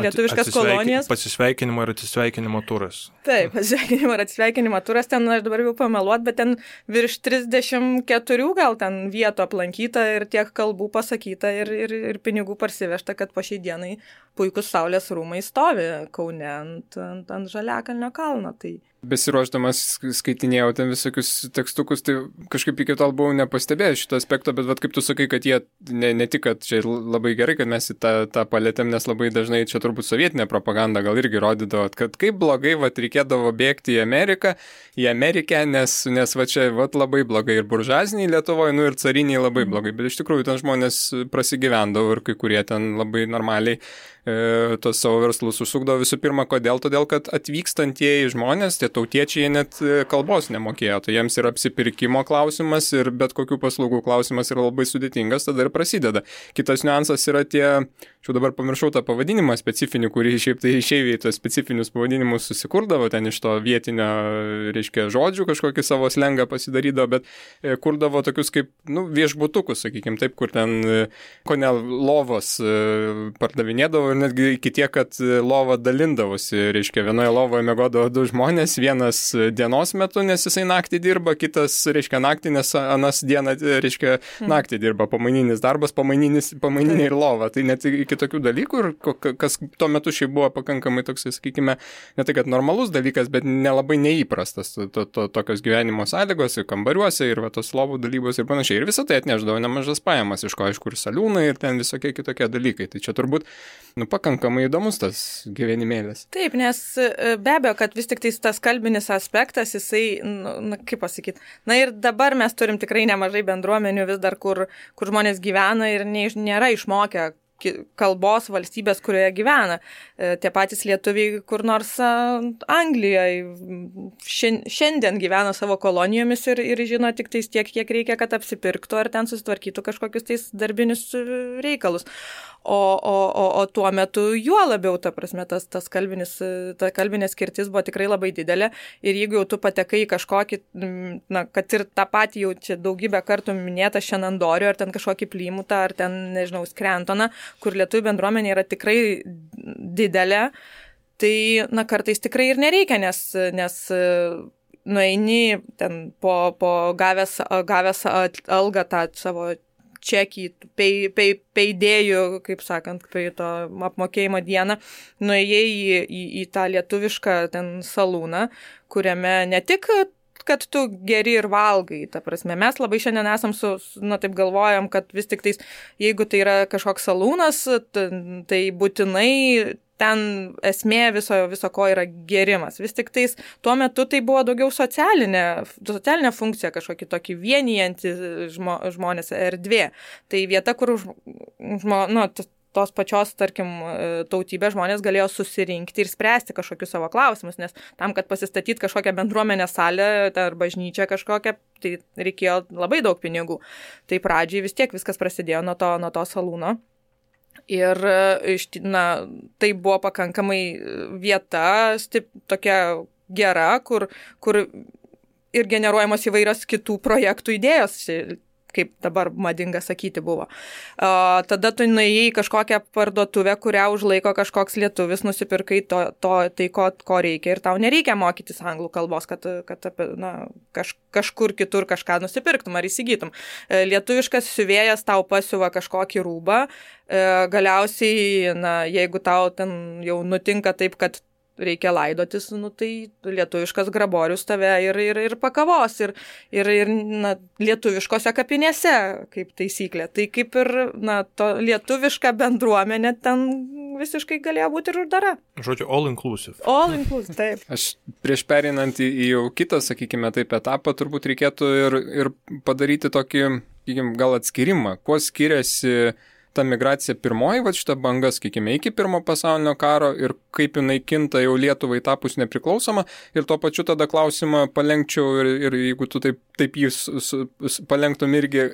Speaker 2: lietuviškas kolonijas.
Speaker 3: Pasisveikinimo ir atsisveikinimo turas.
Speaker 2: Taip, pasveikinimo ir atsisveikinimo turas, ten aš dabar jau pameluot, bet ten virš 34 gal ten vietų aplankyta ir tiek kalbų pasakyta ir pinigų parsivežta, kad po šiai dienai puikus Saulės rūmai stovi Kaune ant Žaliakalnio kalno. Tai
Speaker 1: besiruošdamas skaitinėjau ten visokius tekstukus, tai kažkaip iki tol buvau nepastebėjęs šito aspekto, bet kaip tu sakai, kad jie ne tik, kad čia labai gerai, kad mes į tą palėtėm, nes labai dažnai čia turbūt sovietinė propaganda gal irgi rodydavo, kad kaip blogai reikėdavo bėgti į Ameriką, nes va čia labai blogai ir buržuaziniai Lietuvoje, ir cariniai labai blogai, bet iš tikrųjų ten žmonės prasigyvendavo ir kai kurie ten labai normaliai tos savo verslus užsukdavo. Visų pirma, kodėl? Todėl, kad atvykstantieji žmonės, tie tautiečiai, jie net kalbos nemokėjo, tai jiems yra apsipirkimo klausimas ir bet kokių paslaugų klausimas yra labai sudėtingas, tada ir prasideda. Kitas niuansas yra čia dabar pamiršau tą pavadinimą specifinį, kurį šiaip tai išeiviai tos specifinius pavadinimus susikurdavo, ten iš to vietinio, reiškia, žodžių kažkokį savo slengą pasidarydavo, bet kurdavo tokius kaip, viešbutukus, sakykime, taip, kur ten kone lovos pardavinėdavo ir netgi iki tiek, kad lova dalindavosi, reiškia, vienoje lovoje miegodavo 2 žmonės, vienas dienos metu, nes jisai naktį dirba, kitas, reiškia, naktį, nes anas dieną, reiškia, naktį dirba, pamaininis darbas, pamaininė ir lova. Tai net iki tokių dalykų, ir kas tuo metu šiaip buvo pakankamai toks, sakykime, ne tai, kad normalus dalykas, bet nelabai neįprastas tokios gyvenimo sąlygos ir kambariuose, ir tos lovų dalybos ir panašiai. Ir visą tai atnešdavo nemažas pajamas, iš ko, aišku, ir saliūnai, ir ten visokie kitokie dalykai. Tai čia turbūt pakankamai įdomus tas gyvenimėlis.
Speaker 2: Taip, nes be abejo, kad vis tik tas kalbinis aspektas, jisai, kaip pasakyti, ir dabar mes turim tikrai nemažai bendruomenių vis dar, kur žmonės gyvena ir nėra išmokę kalbos valstybės, kurioje gyvena. Tie patys lietuviai kur nors Anglijoje šiandien gyvena savo kolonijomis ir žino tik tais tiek, kiek reikia, kad apsipirktų ar ten susitvarkytų kažkokius tais darbinius reikalus. O tuo metu juo labiau, ta prasme, ta kalbinė skirtis buvo tikrai labai didelė ir jeigu jau tu patekai į kažkokį, kad ir tą patį jau čia daugybę kartų minėtą Šenandorių ar ten kažkokį Plymutą ar ten, nežinau, Skrentoną, kur lietuvių bendruomenė yra tikrai didelė, tai, kartais tikrai ir nereikia, nes nueini ten po gavęs algą tą savo čekį, peidėjų, kaip sakant, prie to apmokėjimo dieną, nuėjai į tą lietuvišką ten salūną, kuriame ne tik kad tu geri ir valgai, ta prasme. Mes labai šiandien esam taip galvojam, kad vis tik tais, jeigu tai yra kažkoks salūnas, tai būtinai ten esmė viso ko yra gerimas. Vis tik tais tuo metu tai buvo daugiau socialinė funkcija, kažkokį tokį vienijantį žmonės erdvė. Tai vieta, kur tos pačios, tarkim, tautybės žmonės galėjo susirinkti ir spręsti kažkokius savo klausimus, nes tam, kad pasistatyti kažkokią bendruomenę salę ar bažnyčią kažkokią, tai reikėjo labai daug pinigų. Tai pradžiai vis tiek viskas prasidėjo nuo to salūno. Ir tai buvo pakankamai vieta, tokia gera, kur ir generuojamos įvairios kitų projektų idėjos. kaip dabar madinga sakyti buvo. Tada tu nuėjai į kažkokią parduotuvę, kurią užlaiko kažkoks lietuvis, nusipirkai tai, ko reikia ir tau nereikia mokytis anglų kalbos, kad kažkur kitur kažką nusipirktum ar įsigytum. Lietuviškas siuvėjas tau pasiuva kažkokį rūbą, galiausiai, jeigu tau ten jau nutinka taip, kad reikia laidotis, tai lietuviškas graborius tave ir pakavos, ir lietuviškose kapinėse, kaip taisyklė. Tai kaip ir, to lietuviška bendruomenė ten visiškai galėjo būti ir uždara.
Speaker 3: Žodžiu, all inclusive.
Speaker 2: All inclusive, taip.
Speaker 1: Aš prieš perinant į jau kitą, sakykime, taip etapą, turbūt reikėtų ir padaryti tokį, gal atskirimą, kuo skiriasi ta migracija pirmoji, šita banga, sakykime, iki pirmo pasaulinio karo ir kaip jinai kinta jau Lietuvai tapus nepriklausoma ir tuo pačiu tada klausimą palenkčiau ir jeigu tu taip jį palenktum irgi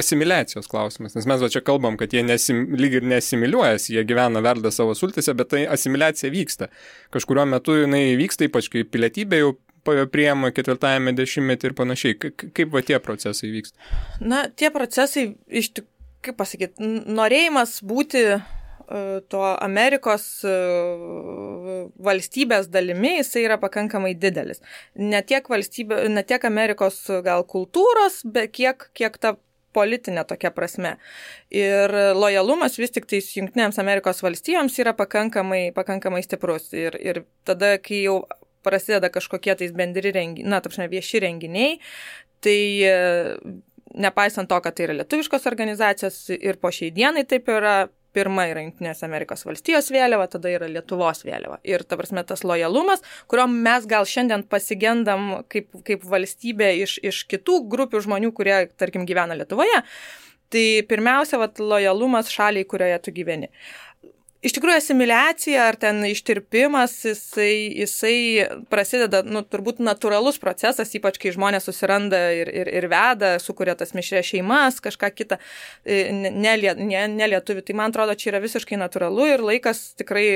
Speaker 1: asimiliacijos klausimas, nes mes čia kalbam, kad jie lyg ir neasimiliuojasi, jie gyvena, verda savo sultise, bet tai asimiliacija vyksta. Kažkuriuo metu jinai vyksta, ypač kai pilietybė jau priema 4-ame dešimtmetį ir panašiai. Kaip tie procesai vyksta?
Speaker 2: Tie procesai iš tikrųjų, kaip pasakyti, norėjimas būti to Amerikos valstybės dalimi, jisai yra pakankamai didelis. Ne tiek Amerikos gal kultūros, bet kiek ta politinė tokia prasme. Ir lojalumas vis tik tais Jungtinėms Amerikos valstijoms yra pakankamai stiprus. Ir tada, kai jau prasideda kažkokie tais bendri renginiai, vieši renginiai, tai nepaisant to, kad tai yra lietuviškos organizacijos ir po šiai dienai taip yra, pirma yra Jungtinės Amerikos valstijos vėliava, tada yra Lietuvos vėliava. Ir ta prasme tas lojalumas, kurio mes gal šiandien pasigendam kaip valstybė iš kitų grupių žmonių, kurie, tarkim, gyvena Lietuvoje, tai pirmiausia, lojalumas šaliai, kurioje tu gyveni. Iš tikrųjų, asimiliacija ar ten ištirpimas, jisai prasideda, turbūt natūralus procesas, ypač kai žmonės susiranda ir veda, sukuria tas mišrias šeimas, kažką kitą, ne lietuvių. Tai man atrodo, čia yra visiškai natūralu ir laikas tikrai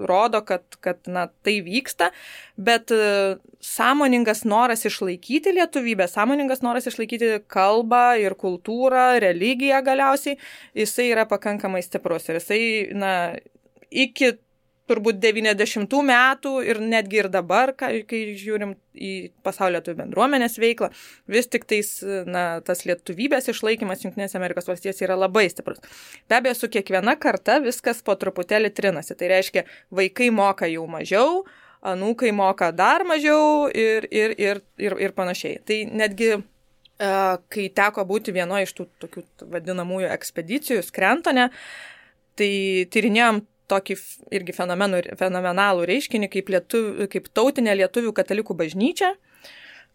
Speaker 2: rodo, kad tai vyksta, bet sąmoningas noras išlaikyti lietuvybę, sąmoningas noras išlaikyti kalbą ir kultūrą, religiją galiausiai, jisai yra pakankamai stiprus ir jisai, iki turbūt 90 metų ir netgi ir dabar, kai žiūrim į pasaulio lietuvių bendruomenės veiklą, vis tik tais, tas lietuvybės išlaikymas Jungtinėse Amerikos valstijose yra labai stiprus. Be abejo, su kiekviena karta viskas po truputėlį trinasi. Tai reiškia, vaikai moka jau mažiau, anūkai moka dar mažiau ir panašiai. Tai netgi, kai teko būti vienoje iš tų tokių vadinamųjų ekspedicijų Skrentone, tai tyrinėjom tokį irgi fenomenalų reiškinį kaip tautinė lietuvių katalikų bažnyčia,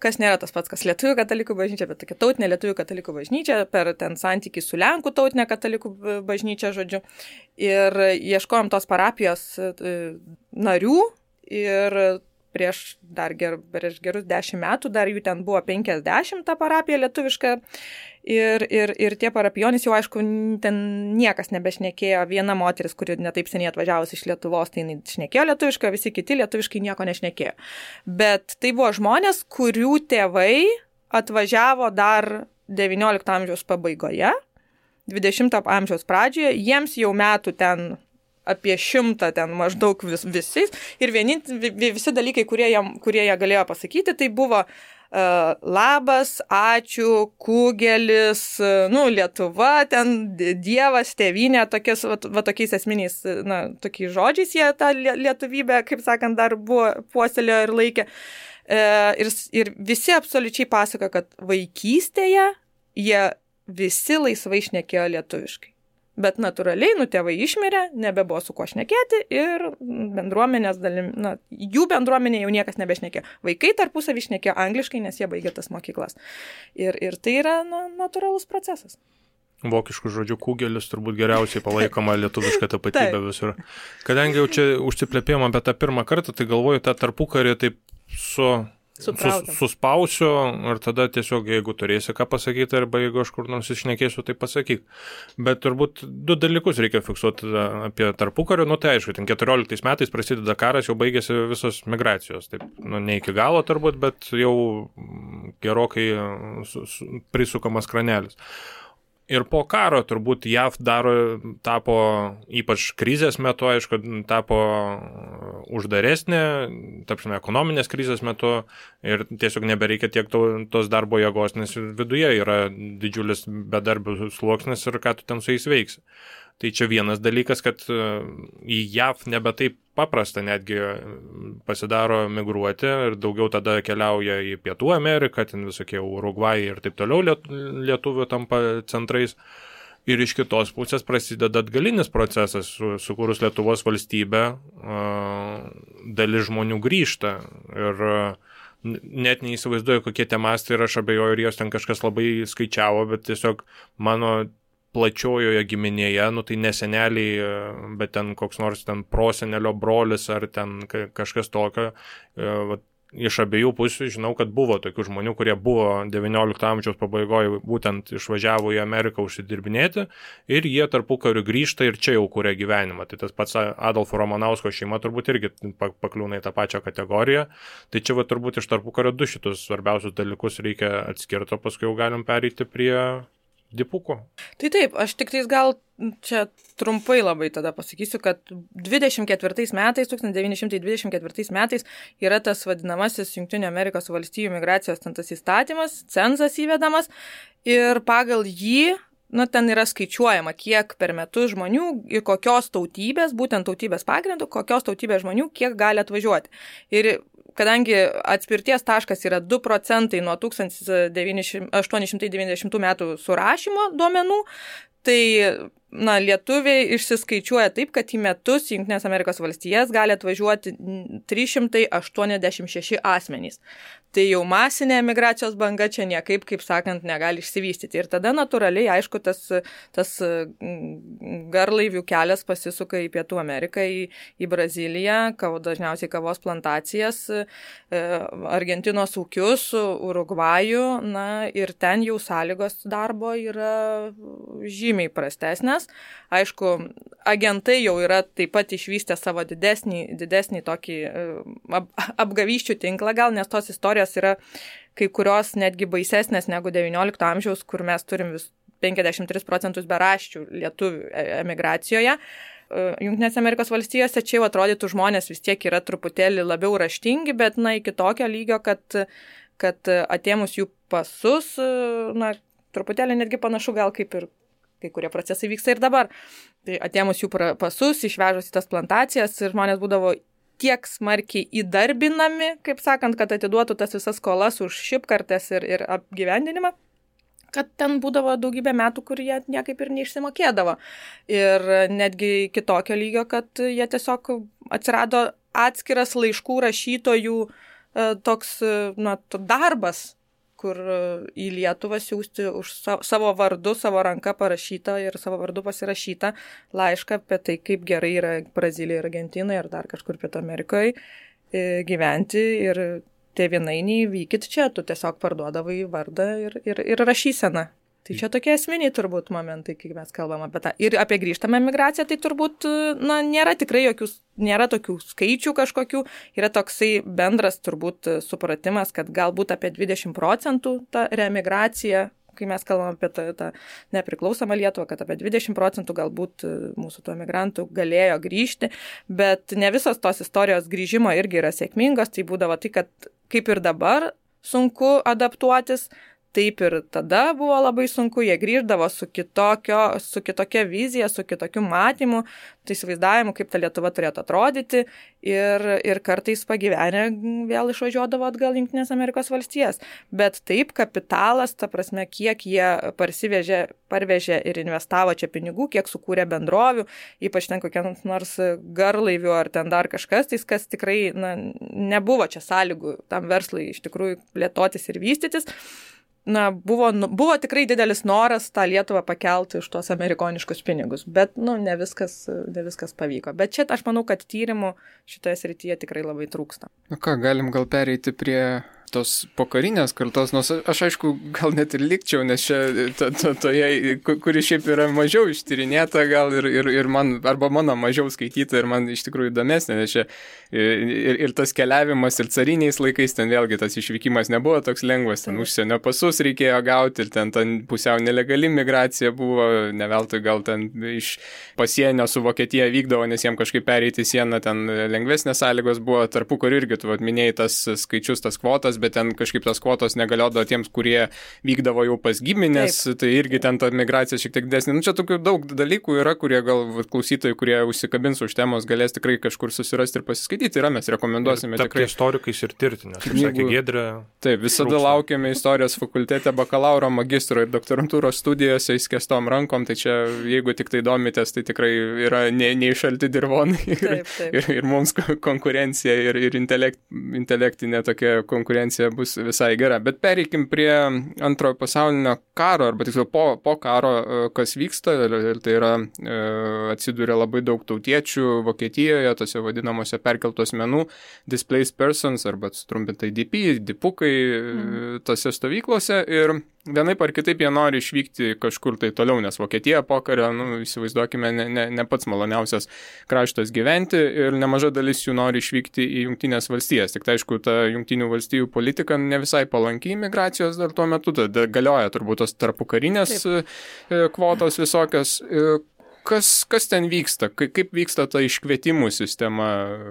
Speaker 2: kas nėra tas pats, kas lietuvių katalikų bažnyčia, bet tokia tautinė lietuvių katalikų bažnyčia per ten santykį su Lenkų tautinė katalikų bažnyčia, žodžiu. Ir ieškojom tos parapijos narių ir prieš gerus 10 metų, dar jų ten buvo 50 ta parapija lietuviška. Ir tie parapijonys jau, aišku, ten niekas nebešnekėjo. Viena moteris, kuri netaip seniai atvažiavus iš Lietuvos, tai šnekėjo lietuviškai, visi kiti lietuviškai nieko nešnekėjo. Bet tai buvo žmonės, kurių tėvai atvažiavo dar 19 amžiaus pabaigoje, 20 amžiaus pradžioje, jiems jau metų ten apie 100 ten maždaug visais. Ir visi dalykai, kurie jie galėjo pasakyti, tai buvo labas, ačiū, kugelis, Lietuva, ten Dievas, tėvynė, tokiais esminiais, tokiais žodžiais jie tą lietuvybę, kaip sakant, dar buvo puoselėjo ir laikė. Ir visi absoliučiai pasako, kad vaikystėje jie visi laisvai šnekėjo lietuviškai. Bet natūraliai, tėvai išmirė, nebebuvo su kuo šnekėti ir bendruomenės jų bendruomenė jau niekas nebešnekėjo. Vaikai tarpusavį šnekėjo angliškai, nes jie baigė tas mokyklas. Ir tai yra natūralus procesas.
Speaker 3: Vokiškų žodžių kugelis turbūt geriausiai palaikoma lietuviška tapatybė visur. Kadangi jau čia užsiplėpėjom apie tą pirmą kartą, tai galvoju, tą tarpukarį taip suspausiu ir tada tiesiog, jeigu turėsi ką pasakyti arba jeigu aš kur nors išnekėsiu, tai pasakyk. Bet turbūt 2 dalykus reikia fiksuoti apie tarpukario. Tai aišku, 14 metais prasideda karas, jau baigėsi visos migracijos. Taip, ne iki galo turbūt, bet jau gerokai prisukamas kranelis. Ir po karo turbūt JAV tapo, ypač krizės metu, aišku, tapo uždaresnė, tapsime, ekonominės krizės metu ir tiesiog nebereikia tiek tos darbo jėgos, nes viduje yra didžiulis bedarbių sluoksnis ir ką tu ten su jais veiksi. Tai čia vienas dalykas, kad į JAV nebe taip paprasta netgi pasidaro migruoti ir daugiau tada keliauja į Pietų Ameriką, ten visokie Urugvajai ir taip toliau lietuvių tampa centrais. Ir iš kitos pusės prasideda atgalinis procesas, sukūrus Lietuvos valstybę, dalis žmonių grįžta ir net neįsivaizduoju, kokie tie mastai ir aš abejoju, ir jos ten kažkas labai skaičiavo, bet tiesiog mano plačiojoje giminėje, tai neseneliai, bet ten koks nors ten prosenelio brolis ar ten kažkas tokio. Iš abiejų pusių žinau, kad buvo tokių žmonių, kurie buvo 19 amžiaus pabaigoje būtent išvažiavo į Ameriką užsidirbinėti ir jie tarpukariu grįžta ir čia jau kuria gyvenimą. Tai tas pats Adolfo Ramanausko šeima turbūt irgi pakliūna į tą pačią kategoriją. Tai čia turbūt iš tarpukario du šitus svarbiausius dalykus reikia atskirti, o paskui jau galim pereiti prie dipukų.
Speaker 2: Tai taip, aš tik tais gal čia trumpai labai tada pasakysiu, kad 1924 metais yra tas vadinamasis Jungtinių Amerikos valstijų migracijos tas įstatymas, cenzas įvedamas ir pagal jį, ten yra skaičiuojama, kiek per metus žmonių ir kokios tautybės, būtent tautybės pagrindų, kokios tautybės žmonių, kiek gali atvažiuoti. Ir kadangi atspirties taškas yra 2% nuo 1890 metų surašymo duomenų, tai lietuviai išsiskaičiuoja taip, kad į metus į Jungtines Amerikos valstijas gali atvažiuoti 386 asmenys. Tai jau masinė emigracijos banga čia niekaip, kaip sakant, negali išsivystyti. Ir tada natūraliai, aišku, tas garlaivių kelias pasisuka į Pietų Ameriką, į Braziliją, dažniausiai kavos plantacijas, Argentinos ūkius, Urugvajų, ir ten jau sąlygos darbo yra žymiai prastesnės. Aišku, agentai jau yra taip pat išvystę savo didesnį tokį apgavysčių tinklą gal, nes tos istorijos yra kai kurios netgi baisesnės negu 19 amžiaus, kur mes turim 53% beraščių lietuvių emigracijoje. Jungtinėse Amerikos valstijose čia jau atrodytų žmonės vis tiek yra truputėlį labiau raštingi, bet iki tokio lygio, kad atėmus jų pasus, truputėlį netgi panašu gal kaip ir kai kurie procesai vyksta ir dabar. Tai atėmus jų pasus, išvežus į tas plantacijas, žmonės būdavo tiek smarkiai įdarbinami, kaip sakant, kad atiduotų tas visas skolas už šipkartes ir apgyvendinimą, kad ten būdavo daugybė metų, kur jie niekaip ir neišsimokėdavo. Ir netgi kitokio lygio, kad jie tiesiog atsirado atskiras laiškų rašytojų toks darbas, kur į Lietuvą siųsti už savo vardu, savo ranką parašytą ir savo vardu pasirašytą laišką apie tai, kaip gerai yra Brazilijoje ir Argentinoje ir dar kažkur Pietų Amerikoje gyventi ir tėvynainiai vykit čia, tu tiesiog parduodavai vardą ir rašyseną. Tai čia tokie esminiai turbūt momentai, kai mes kalbam apie tą. Ir apie grįžtamą migraciją, tai turbūt nėra tikrai nėra tokių skaičių kažkokių, yra toksai bendras turbūt supratimas, kad galbūt apie 20% ta reemigracija, kai mes kalbam apie tą nepriklausomą Lietuvą, kad apie 20% galbūt mūsų tų emigrantų galėjo grįžti, bet ne visos tos istorijos grįžimo irgi yra sėkmingos, tai būdavo tai, kad kaip ir dabar sunku adaptuotis, taip ir tada buvo labai sunku, jie grįždavo su kitokia vizija, su kitokiu matymu, tai įsivaizdavimu, kaip ta Lietuva turėtų atrodyti ir kartais pagyvenę vėl išvažiuodavo atgal į Jungtines Amerikos valstijas. Bet taip kapitalas, ta prasme, kiek jie parvežė ir investavo čia pinigų, kiek sukūrė bendrovių, ypač ten kokia nors garlaivių ar ten dar kažkas, tai kas tikrai nebuvo čia sąlygų tam verslui iš tikrųjų plėtotis ir vystytis. Buvo tikrai didelis noras tą Lietuvą pakelti už tos amerikoniškus pinigus, bet ne viskas pavyko. Bet čia aš manau, kad tyrimų šitoje srityje tikrai labai trūksta.
Speaker 1: Galim gal pereiti prie tos pokarinės kartos, nors aš aišku gal net ir likčiau, nes čia toje, kuri šiaip yra mažiau ištyrinėta gal ir man, arba mano mažiau skaityta ir man iš tikrųjų įdomesnė, nes čia ir tas keliavimas ir cariniais laikais, ten vėlgi tas išvykimas nebuvo toks lengvas, ten užsienio pasus reikėjo gauti ir ten pusiau nelegali migracija buvo, ne veltui gal ten iš pasienio su Vokietija vykdavo, nes jiem kažkaip pereiti sieną, ten lengvesnės sąlygos buvo, tarpukariu irgi, tu minėjai tas skaičius, tas kvotas, bet ten kažkaip tas kvotos negaliodavo tiems, kurie vykdavo jau pas giminės, tai irgi ten ta migracija šiek tiek didesnė. Nu, čia tokių daug dalykų yra, kurie gal klausytojai, kurie užsikabins už temos, galės tikrai kažkur susirasti ir pasiskaityti. Yra, mes rekomenduosime tikrai.
Speaker 3: Istorikais ir tirti, nes, kaip sakė Giedrė.
Speaker 1: Taip, visada laukiame istorijos fakultete, bakalauro, magistro ir doktorantūros studijose įskestom rankom, tai čia, jeigu tik tai domitės, tai tikrai yra neišalti dirvonai ir mums konkurencija ir intelektinė tokia konkurencija bus visai gera. Bet pereikim prie antrojo pasaulinio karo, arba tiksliau po karo, kas vyksta, ir tai yra atsiduria labai daug tautiečių Vokietijoje, tose vadinamose perkeltų asmenų, displaced persons, arba sutrumpintai DP, dipukai tose stovyklose, ir vienaip ar kitaip jie nori išvykti kažkur tai toliau, nes Vokietija pokario, įsivaizduokime, ne pats maloniausias kraštas gyventi, ir nemaža dalis jų nori išvykti į Jungtinės valstijas. Tik tai aišku, ta Jungtinių valstijų politika ne visai palanki imigracijos dar tuo metu, galioja turbūt tos tarpukarinės kvotos visokios. Kas ten vyksta? Kaip vyksta ta iškvietimų sistema,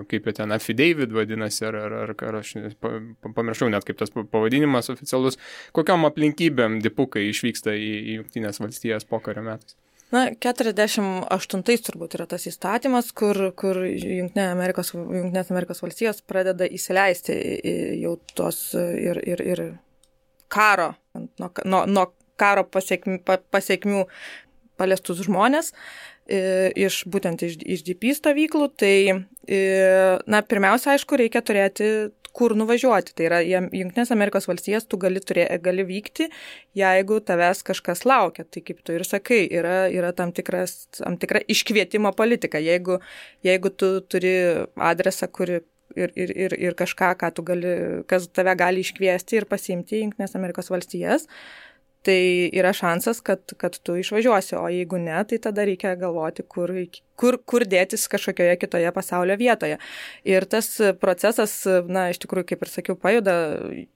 Speaker 1: kaip jie ten affidavit vadinasi, ar aš pamiršau net kaip tas pavadinimas oficialus, kokiom aplinkybėm dipukai išvyksta į Jungtinės valstijas pokario metais?
Speaker 2: Na, 48 turbūt yra tas įstatymas, kur Jungtinės Amerikos valstijos pradeda įsileisti jau tos ir karo, nuo karo pasiekmių paliestus žmonės būtent iš DP stovyklų, tai, pirmiausia, aišku, reikia turėti kur nuvažiuoti. Tai yra, Jungtinės Amerikos valstijas tu gali vykti, jeigu tavęs kažkas laukia. Tai kaip tu ir sakai, yra tam tikra iškvietimo politika. Jeigu tu turi adresą, ir kažką, kas tave gali iškviesti ir pasiimti į Jungtinės Amerikos valstijas, tai yra šansas, kad tu išvažiuosi, o jeigu ne, tai tada reikia galvoti, kur dėtis kažkokioje kitoje pasaulio vietoje. Ir tas procesas, iš tikrųjų, kaip ir sakiau, pajuda,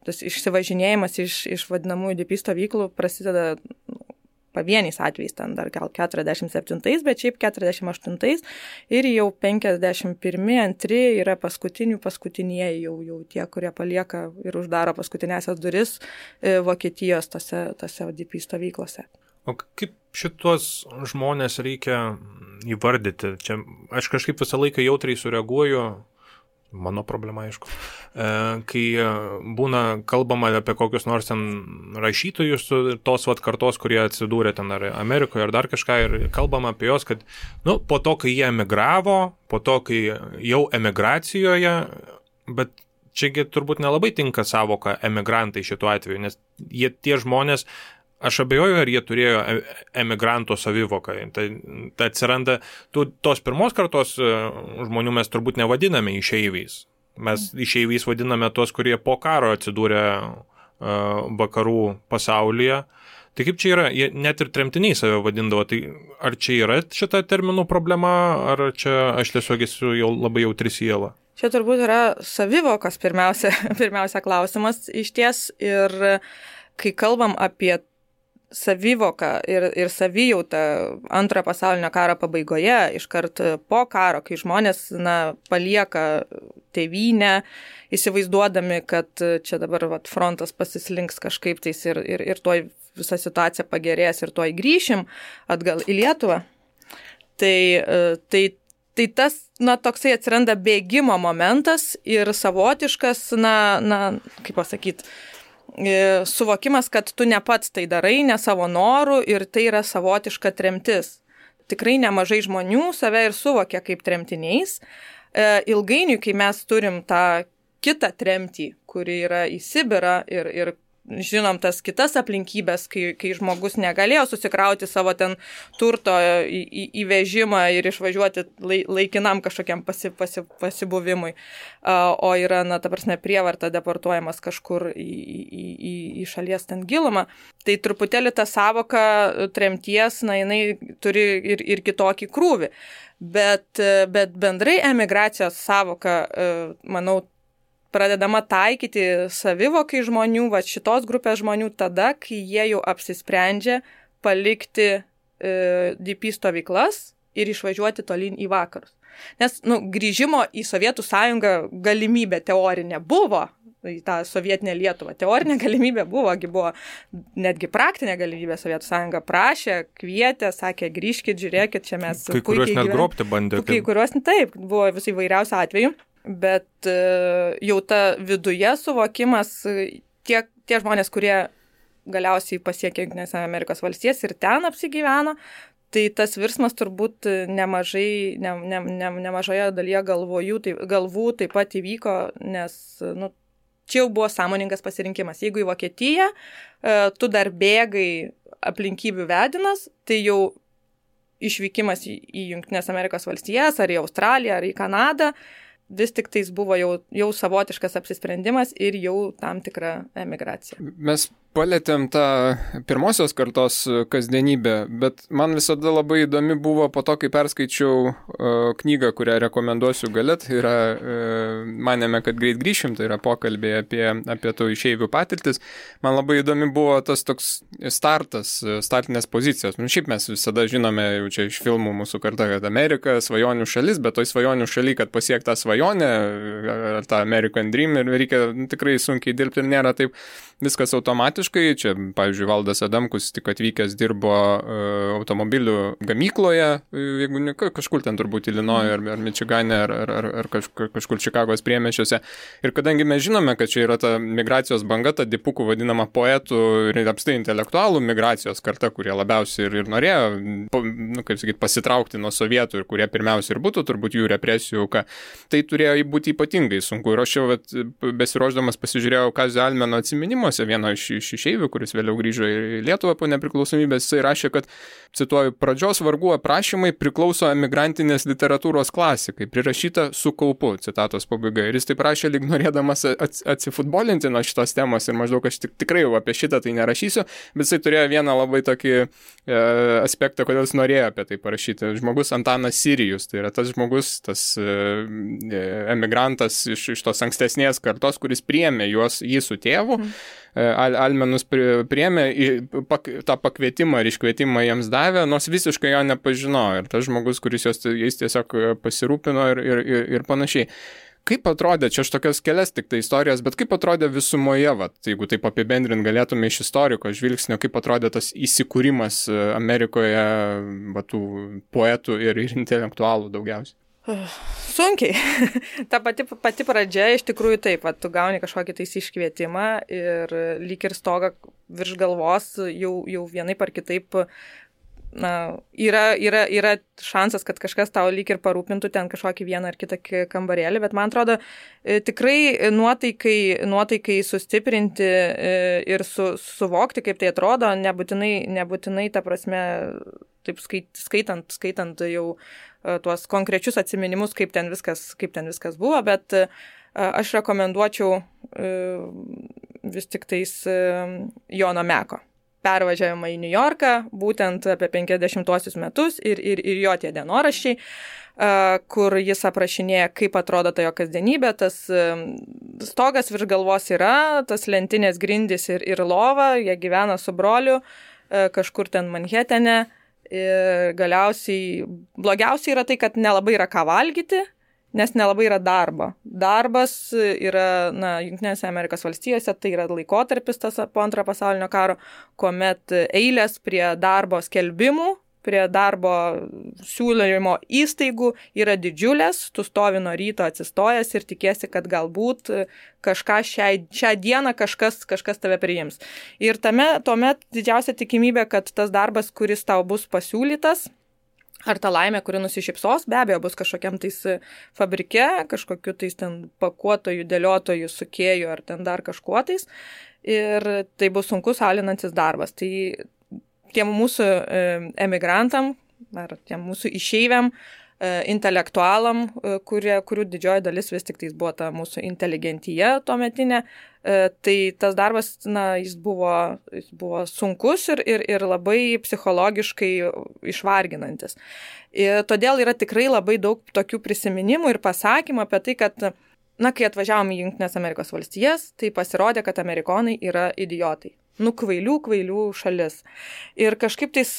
Speaker 2: tas išsivažinėjimas iš vadinamųjų DP stovyklų prasideda pavieniais atvejais, ten dar gal 47, bet šiaip 48 ir jau 51-2 yra paskutinieji jau tie, kurie palieka ir uždaro paskutinėsias duris Vokietijos tose DP stovyklose.
Speaker 3: O kaip šitos žmonės reikia įvardyti? Čia aš kažkaip visą laiką jautriai sureaguoju, mano problema, aišku, kai būna kalbama apie kokius nors ten rašytojus tos kartos, kurie atsidūrė ten ar Amerikoje ar dar kažką, ir kalbama apie juos, kad po to, kai jie emigravo, po to, kai jau emigracijoje, bet čiagi turbūt nelabai tinka savoka emigrantai šituo atveju, nes tie žmonės, aš abejoju, ar jie turėjo emigranto savivoką. Tai atsiranda, tos pirmos kartos žmonių mes turbūt nevadiname išeiviais. Mes išeiviais vadiname tos, kurie po karo atsidūrė vakarų pasaulyje. Tai kaip čia yra, jie net ir tremtiniai save vadindavo, tai ar čia yra šita terminų problema, ar čia aš tiesiog esu jau labai jautri siela?
Speaker 2: Čia turbūt yra savivokos pirmiausia klausimas išties, ir kai kalbam apie savivoką ir savijautą antrojo pasaulinio karo pabaigoje, iškart po karo, kai žmonės palieka tėvynę, įsivaizduodami, kad čia dabar frontas pasislinks kažkaip tais ir tuoj visa situacija pagerės ir tuoj grįšim atgal į Lietuvą. Tai tas, toksai atsiranda bėgimo momentas ir savotiškas, kaip pasakyti, suvokimas, kad tu ne pats tai darai, ne savo norų, ir tai yra savotiška tremtis. Tikrai nemažai žmonių save ir suvokia kaip tremtiniais. Ilgainiui, kai mes turim tą kitą tremtį, kuri yra į Sibirą ir žinom tas kitas aplinkybės, kai žmogus negalėjo susikrauti savo ten turto į vežimą ir išvažiuoti laikinam kažkokiam pasibuvimui, o yra, na, ta prasme, prievarta deportuojamas kažkur į šalies ten gilumą. Tai truputėlį ta savoka tremties, na, jinai turi ir kitokį krūvį. Bet bendrai emigracijos savoka, manau, pradedama taikyti savivokai žmonių, va šitos grupės žmonių tada, kai jie jau apsisprendžia palikti DP stovyklas ir išvažiuoti tolyn į vakarus. Nes, grįžimo į Sovietų sąjungą galimybė teorinė buvo, į tą sovietinę Lietuvą. Teorinė galimybė buvo netgi praktinė galimybė. Sovietų sąjunga prašė, kvietė, sakė, grįžkit, žiūrėkit, čia mes
Speaker 3: kai kuriuos net grobti bandė.
Speaker 2: Kai kuriuos, taip, buvo visai įvairiausių atvejų. Bet jau ta viduje suvokimas, tie žmonės, kurie galiausiai pasiekė Jungtinės Amerikos valstijas ir ten apsigyveno, tai tas virsmas turbūt nemažoje dalyje galvų taip pat įvyko, nes čia jau buvo sąmoningas pasirinkimas. Jeigu į Vokietiją tu dar bėgai aplinkybių vedinas, tai jau išvykimas į Jungtinės Amerikos valstijas, ar į Australiją, ar į Kanadą, vis tik tais buvo jau savotiškas apsisprendimas ir jau tam tikra emigracija.
Speaker 1: Mes palėtėm tą pirmosios kartos kasdienybę, bet man visada labai įdomi buvo po to, kai perskaičiau knygą, kurią rekomenduosiu gale, tai yra manėme, kad greit grįšim, tai yra pokalbiai apie tų išeivių patirtis. Man labai įdomi buvo tas toks startinės pozicijos. Šiaip mes visada žinome jau čia iš filmų mūsų karta, kad Amerika svajonių šalis, bet toj svajonių šaly, kad pasiekti tą svajonę, ar tą American Dream, ir reikia tikrai sunkiai dirbti ir nėra taip viskas automatiškai. Čia, pavyzdžiui, Valdas Adamkus tik atvykęs dirbo automobilių gamykloje, jeigu ne kažkur ten turbūt Ilinoje ar Mičigane ar kažkur Čikagos priemiesčiuose. Ir kadangi mes žinome, kad čia yra ta migracijos banga, ta dipukų vadinama poetų ir apstai intelektualų migracijos karta, kurie labiausiai ir norėjo, pasitraukti nuo sovietų ir kurie pirmiausia ir būtų turbūt jų represijų auka, tai turėjo būti ypatingai sunku. Ir aš jau besiruošdamas pasižiūrėjau Kazio Almeno atsiminimuose, vieno iš išeivių, kuris vėliau grįžo į Lietuvą po nepriklausomybės, jisai rašė, kad, cituoju, pradžios vargų aprašymai priklauso emigrantinės literatūros klasikai, prirašyta su kaupu, citatos pabaiga. Ir jis taip rašė, lyg norėdamas atsifutbolinti nuo šitos temos ir maždaug aš tikrai jau apie šitą tai nerašysiu, bet jisai turėjo vieną labai tokį aspektą, kodėl jis norėjo apie tai parašyti. Žmogus Antanas Sirijus, tai yra tas žmogus, tas emigrantas iš tos ankstesnės kartos, kuris priėmė jį su tėvu. Almenus priėmė tą pakvietimą ir iškvietimą jiems davė, nors visiškai jo nepažinojo. Ir tas žmogus, kuris jais tiesiog pasirūpino ir panašiai. Kaip atrodė, čia aš tokias kelias tik tai istorijas, bet kaip atrodė visumoje, jeigu taip apibendrint galėtume iš istoriko žvilgsnio, kaip atrodė tas įsikūrimas Amerikoje tų poetų ir intelektualų daugiausiai?
Speaker 2: Sunkiai. Ta pati pradžia iš tikrųjų taip, tu gauni kažkokį tais iškvietimą ir lyg ir stoga virš galvos jau vienaip ar kitaip, yra šansas, kad kažkas tau lyg ir parūpintų ten kažkokį vieną ar kitą kambarėlį, bet man atrodo tikrai nuotaikai sustiprinti ir suvokti, kaip tai atrodo, nebūtinai ta prasme, taip skaitant jau tuos konkrečius atsiminimus, kaip ten viskas buvo, bet aš rekomenduočiau vis tik tais Jono Meko pervažiavimą į New Yorką, būtent apie 50-osius metus ir jo tie dienoraščiai, kur jis aprašinėja, kaip atrodo ta jo kasdienybė, tas stogas virš galvos yra, tas lentinės grindys ir lova, jie gyvena su broliu kažkur ten Manhetene. Ir galiausiai blogiausiai yra tai, kad nelabai yra ką valgyti, nes nelabai yra darbo. Darbas yra, Jungtinėse Amerikos valstijose, tai yra laikotarpis tas po Antrojo pasaulinio karo, kuomet eilės prie darbo skelbimų, prie darbo siūlymo įstaigų yra didžiulės, tu stovi nuo ryto atsistojęs ir tikiesi, kad galbūt kažką šią dieną kažkas tave priims. Ir tuomet didžiausia tikimybė, kad tas darbas, kuris tau bus pasiūlytas, Ar ta laimė, kuri nusišypsos, be abejo, bus kažkokiam tais fabrike, kažkokiu tais ten pakuotojų, dėliotojų, sukėjų ar ten dar kažkuo tais. Ir tai bus sunkus alinantis darbas. Tai tiem mūsų emigrantam ar tiem mūsų išeiviam, intelektualam, kurių didžioji dalis vis tik tais buvo ta mūsų inteligentija tuometinė, tai tas darbas, jis buvo sunkus ir labai psichologiškai išvarginantis. Ir todėl yra tikrai labai daug tokių prisiminimų ir pasakymų apie tai, kad, kai atvažiavom į Jungtines Amerikos valstijas, tai pasirodė, kad amerikonai yra idiotai. Kvailių šalis. Ir kažkaip tais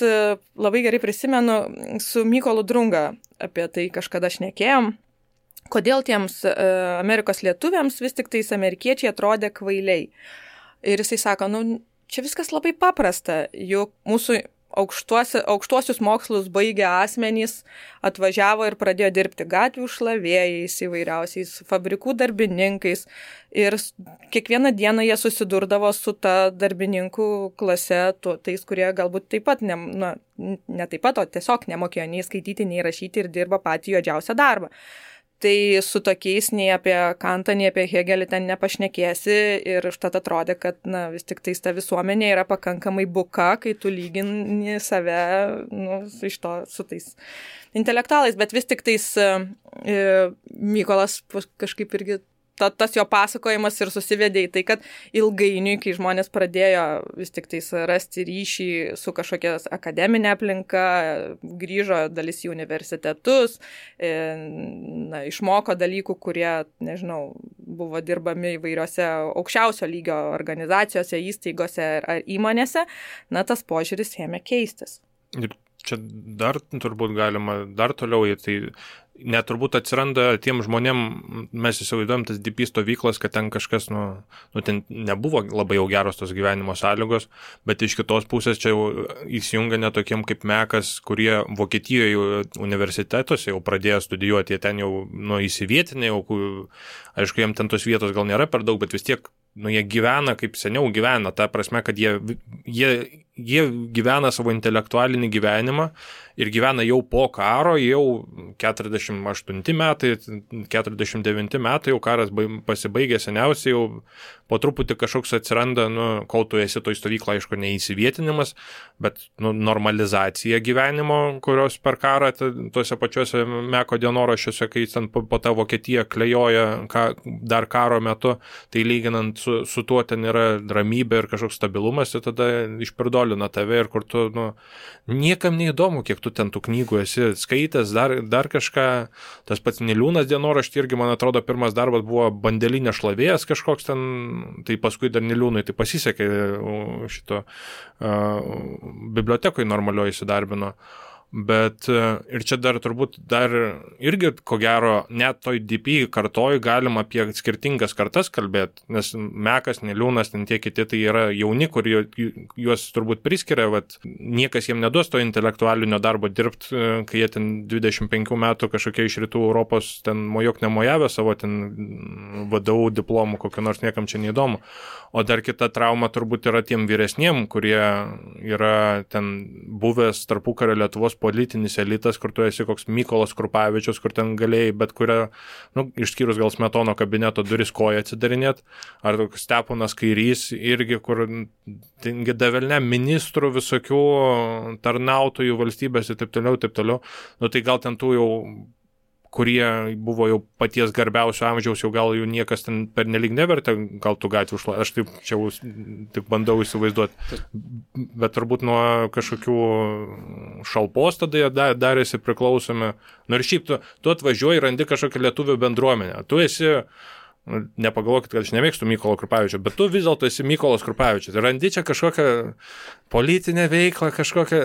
Speaker 2: labai gerai prisimenu, su Mykolu Drunga apie tai kažkada šnekėjom, kodėl tiems Amerikos lietuviams vis tik tais amerikiečiai atrodė kvailiai. Ir jisai sako, čia viskas labai paprasta, juk mūsų aukštuosius mokslus baigę asmenys atvažiavo ir pradėjo dirbti gatvių šlavėjais, įvairiausiais fabrikų darbininkais ir kiekvieną dieną jie susidurdavo su ta darbininkų klase, tais, kurie galbūt taip pat, ne taip pat, o tiesiog nemokėjo nei skaityti, nei rašyti ir dirba patį juodžiausią darbą. Tai su tokiais nei apie Kantą, nei apie Hegelį ten nepašnekėsi ir užtat atrodė, kad vis tik tais ta visuomenė yra pakankamai buka, kai tu lygini save su tais intelektualais, bet vis tik tais Mykolas kažkaip irgi tas jo pasakojimas ir susivedė į tai, kad ilgainiui, kai žmonės pradėjo vis tik tais rasti ryšį su kažkokia akademinė aplinka, grįžo dalis į universitetus, išmoko dalykų, kurie, buvo dirbami įvairiose aukščiausio lygio organizacijose, įstaigose ar įmonėse, tas požiūris ėmė keistis.
Speaker 3: Ir čia dar turbūt galima dar toliau, tai net turbūt atsiranda tiem žmonėm, mes įsivaizduojam tas DP stovyklas, kad ten kažkas, ten nebuvo labai jau geros tos gyvenimo sąlygos, bet iš kitos pusės čia jau įsijungia netokiem kaip Mekas, kurie Vokietijoje universitetuose jau pradėjo studijuoti, jie ten jau įsivietinė, aišku, jiem ten tos vietos gal nėra per daug, bet vis tiek jie gyvena kaip seniau gyvena, ta prasme, kad jie gyvena savo intelektualinį gyvenimą ir gyvena jau po karo, jau 48 metai, 49 metai, jau karas pasibaigė seniausiai, jau po truputį kažkoks atsiranda, kol tu esi toj stovyklą, aišku, neįsivietinimas, bet normalizacija gyvenimo, kurios per karą tuose pačiuose Meko dienoraščiuose, kai ten po tą Vokietiją klejoja dar karo metu, tai lyginant su tuo ten yra ramybė ir kažkoks stabilumas, ir tada išpirdolina tave ir kur tu, niekam neįdomu, kiek tu ten tų knygų esi skaitęs, dar kažką. Tas pats Niliūnas dienoraštį irgi, man atrodo, pirmas darbas buvo bandelinė šlavėjas kažkoks ten, tai paskui dar Niliūnui tai pasisekė šito bibliotekoje normalioje įsidarbino. Bet ir čia dar turbūt irgi, ko gero, net toj DP kartoj galima apie skirtingas kartas kalbėti, nes Mekas, Niliūnas, ten tie kiti, tai yra jauni, kur juos turbūt priskiria, niekas jiem neduos to intelektualinio darbo dirbti, kai jie ten 25 metų kažkokie iš rytų Europos ten mojok nemojavę savo ten VDU diplomų, kokio nors niekam čia neįdomu. O dar kita trauma turbūt yra tiem vyresniem, kurie yra ten buvęs tarpukario Lietuvos politinis elitas, kur tu esi koks Mykolas Krupavičius, kur ten galėjai bet kurią, išskyrus gal Smetono kabineto duris koją atsidarinėt, ar Steponas Kairys irgi, kur davelne ministrų visokių tarnautojų valstybės ir taip toliau. Tai gal ten tų jau, kurie buvo jau paties garbiausio amžiaus, jau gal jų niekas ten pernelyg nevertė, gal tų gatvių aš taip čia tik bandau įsivaizduoti, bet turbūt nuo kažkokių šalpos tada jie darėsi priklausomi. Ir šiaip tu atvažiuoji ir randi kažkokią lietuvių bendruomenę. Tu esi, nepagalvokit, kad aš nemėgstu Mykolo Krupavičio, bet tu vis dėlto esi Mykolas Krupavičius. Randi čia kažkokią politinę veiklą, kažkokią,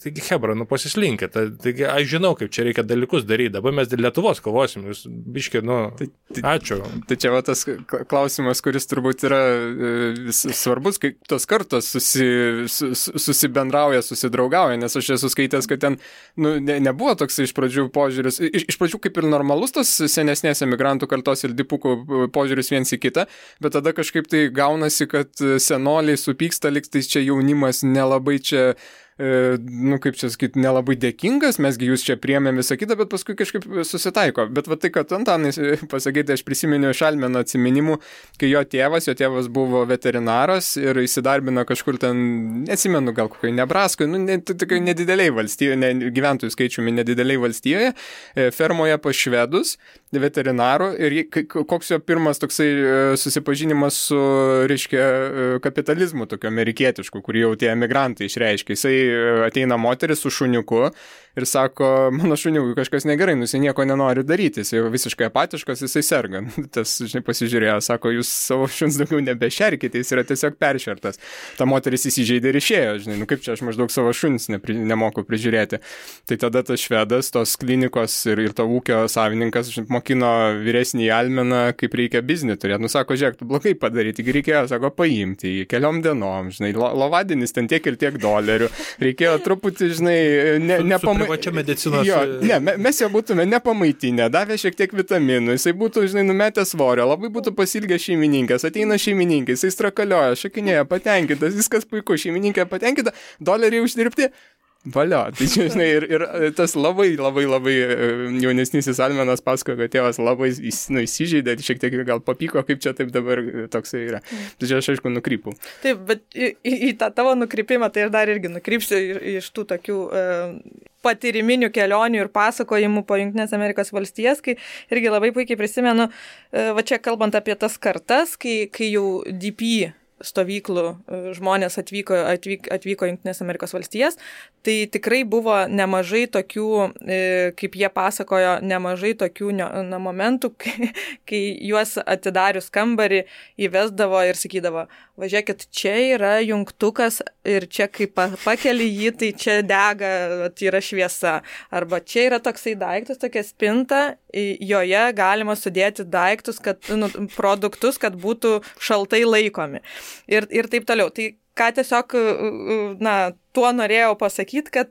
Speaker 3: taigi hebra, pasislinkit. Taigi aš žinau, kaip čia reikia dalykus daryti. Dabar mes dėl Lietuvos kovosim. Jūs biški, ačiū.
Speaker 1: Tai čia tas klausimas, kuris turbūt yra svarbus, kai tos kartos susibendrauja, susidraugauja, nes aš esu skaitęs, kad ten nebuvo toks iš pradžių požiūris, iš pradžių kaip ir normalus tos senesnės emigrantų kartos ir dipukų požiūris viens į kitą, bet tada kažkaip tai gaunasi, kad senoliai supyksta, lyg tai čia jaunimas nelabai čia kaip čia sakyti, nelabai dėkingas, mesgi jūs čia priėmėm visą kitą, bet paskui kažkaip susitaiko. Bet va tai, kad Antanai pasakyti, aš prisiminiau iš Almeno atsiminimų, kai jo tėvas buvo veterinaras ir įsidarbino kažkur ten, neatsimenu, gal kokiai Nebraskoje, tokiai nedideliai valstijoje, gyventojų skaičiumi nedideliai valstijoje, fermoje pas švedus, veterinaru, ir koks jo pirmas toksai susipažinimas su, reiškia, kapitalizmu, tokio amerikietišku, kurį jau tie emigrantai išreiškia. Jisai ateina moteris su šuniuku ir sako, mano šuniukui kažkas negerai, jisai nieko nenori daryti, jisai jau visiškai apatiškas, jisai serga. Tas, pasižiūrėjo, sako, jūs savo šuns daugiau nebešerkite, jis yra tiesiog peršertas. Ta moteris įsižeidė ir išėjo, kaip čia aš maždaug savo šuns nemoku prižiūrėti. Tai tada tas švedas, tos klinikos ir to ūkio savininkas mokino vyresnį Almeną, kaip reikia biznį turėti. Sako, žiūrėk, tu blogai padaryti, tik reikėjo, sako, paimti jį keliom dienom, lovadienis ten tiek ir tiek dolerių. Reikėjo truputį,
Speaker 3: privačia medicinos.
Speaker 1: Jo, mes jo būtume nepamaitinę, davė šiek tiek vitaminų, jisai būtų, numetę svorio, labai būtų pasilgęs šeimininkas, ateina šeimininkai, jisai strakalioja, šakinėja, patenkintas, viskas puiku, šeimininkė patenkinta, doleriai uždirbti. Valio, tai ir tas labai jaunesnysis Almenas pasakojo, kad tėvas labai įsižeidė, šiek tiek gal papyko, kaip čia taip dabar toksai yra. Tai čia aš aišku nukrypau.
Speaker 2: Taip, bet į tą tavo nukrypimą tai aš dar irgi nukrypsiu iš tų tokių patyriminių kelionių ir pasakojimų po Jungtinės Amerikos valstijas, kai irgi labai puikiai prisimenu, va čia kalbant apie tas kartas, kai jau DP stovyklų žmonės atvyko Jungtinės Amerikos valstijas, tai tikrai buvo nemažai tokių, kaip jie pasakojo, nemažai tokių momentų, kai juos atidarius kambarį įvesdavo ir sakydavo, važiuokit, čia yra jungtukas ir čia kai pakeli jį, tai čia dega, tai yra šviesa. Arba čia yra toksai daiktas, tokia spinta, joje galima sudėti daiktus, produktus, kad būtų šaltai laikomi. Ir taip toliau. Tai ką tiesiog, tuo norėjau pasakyti, kad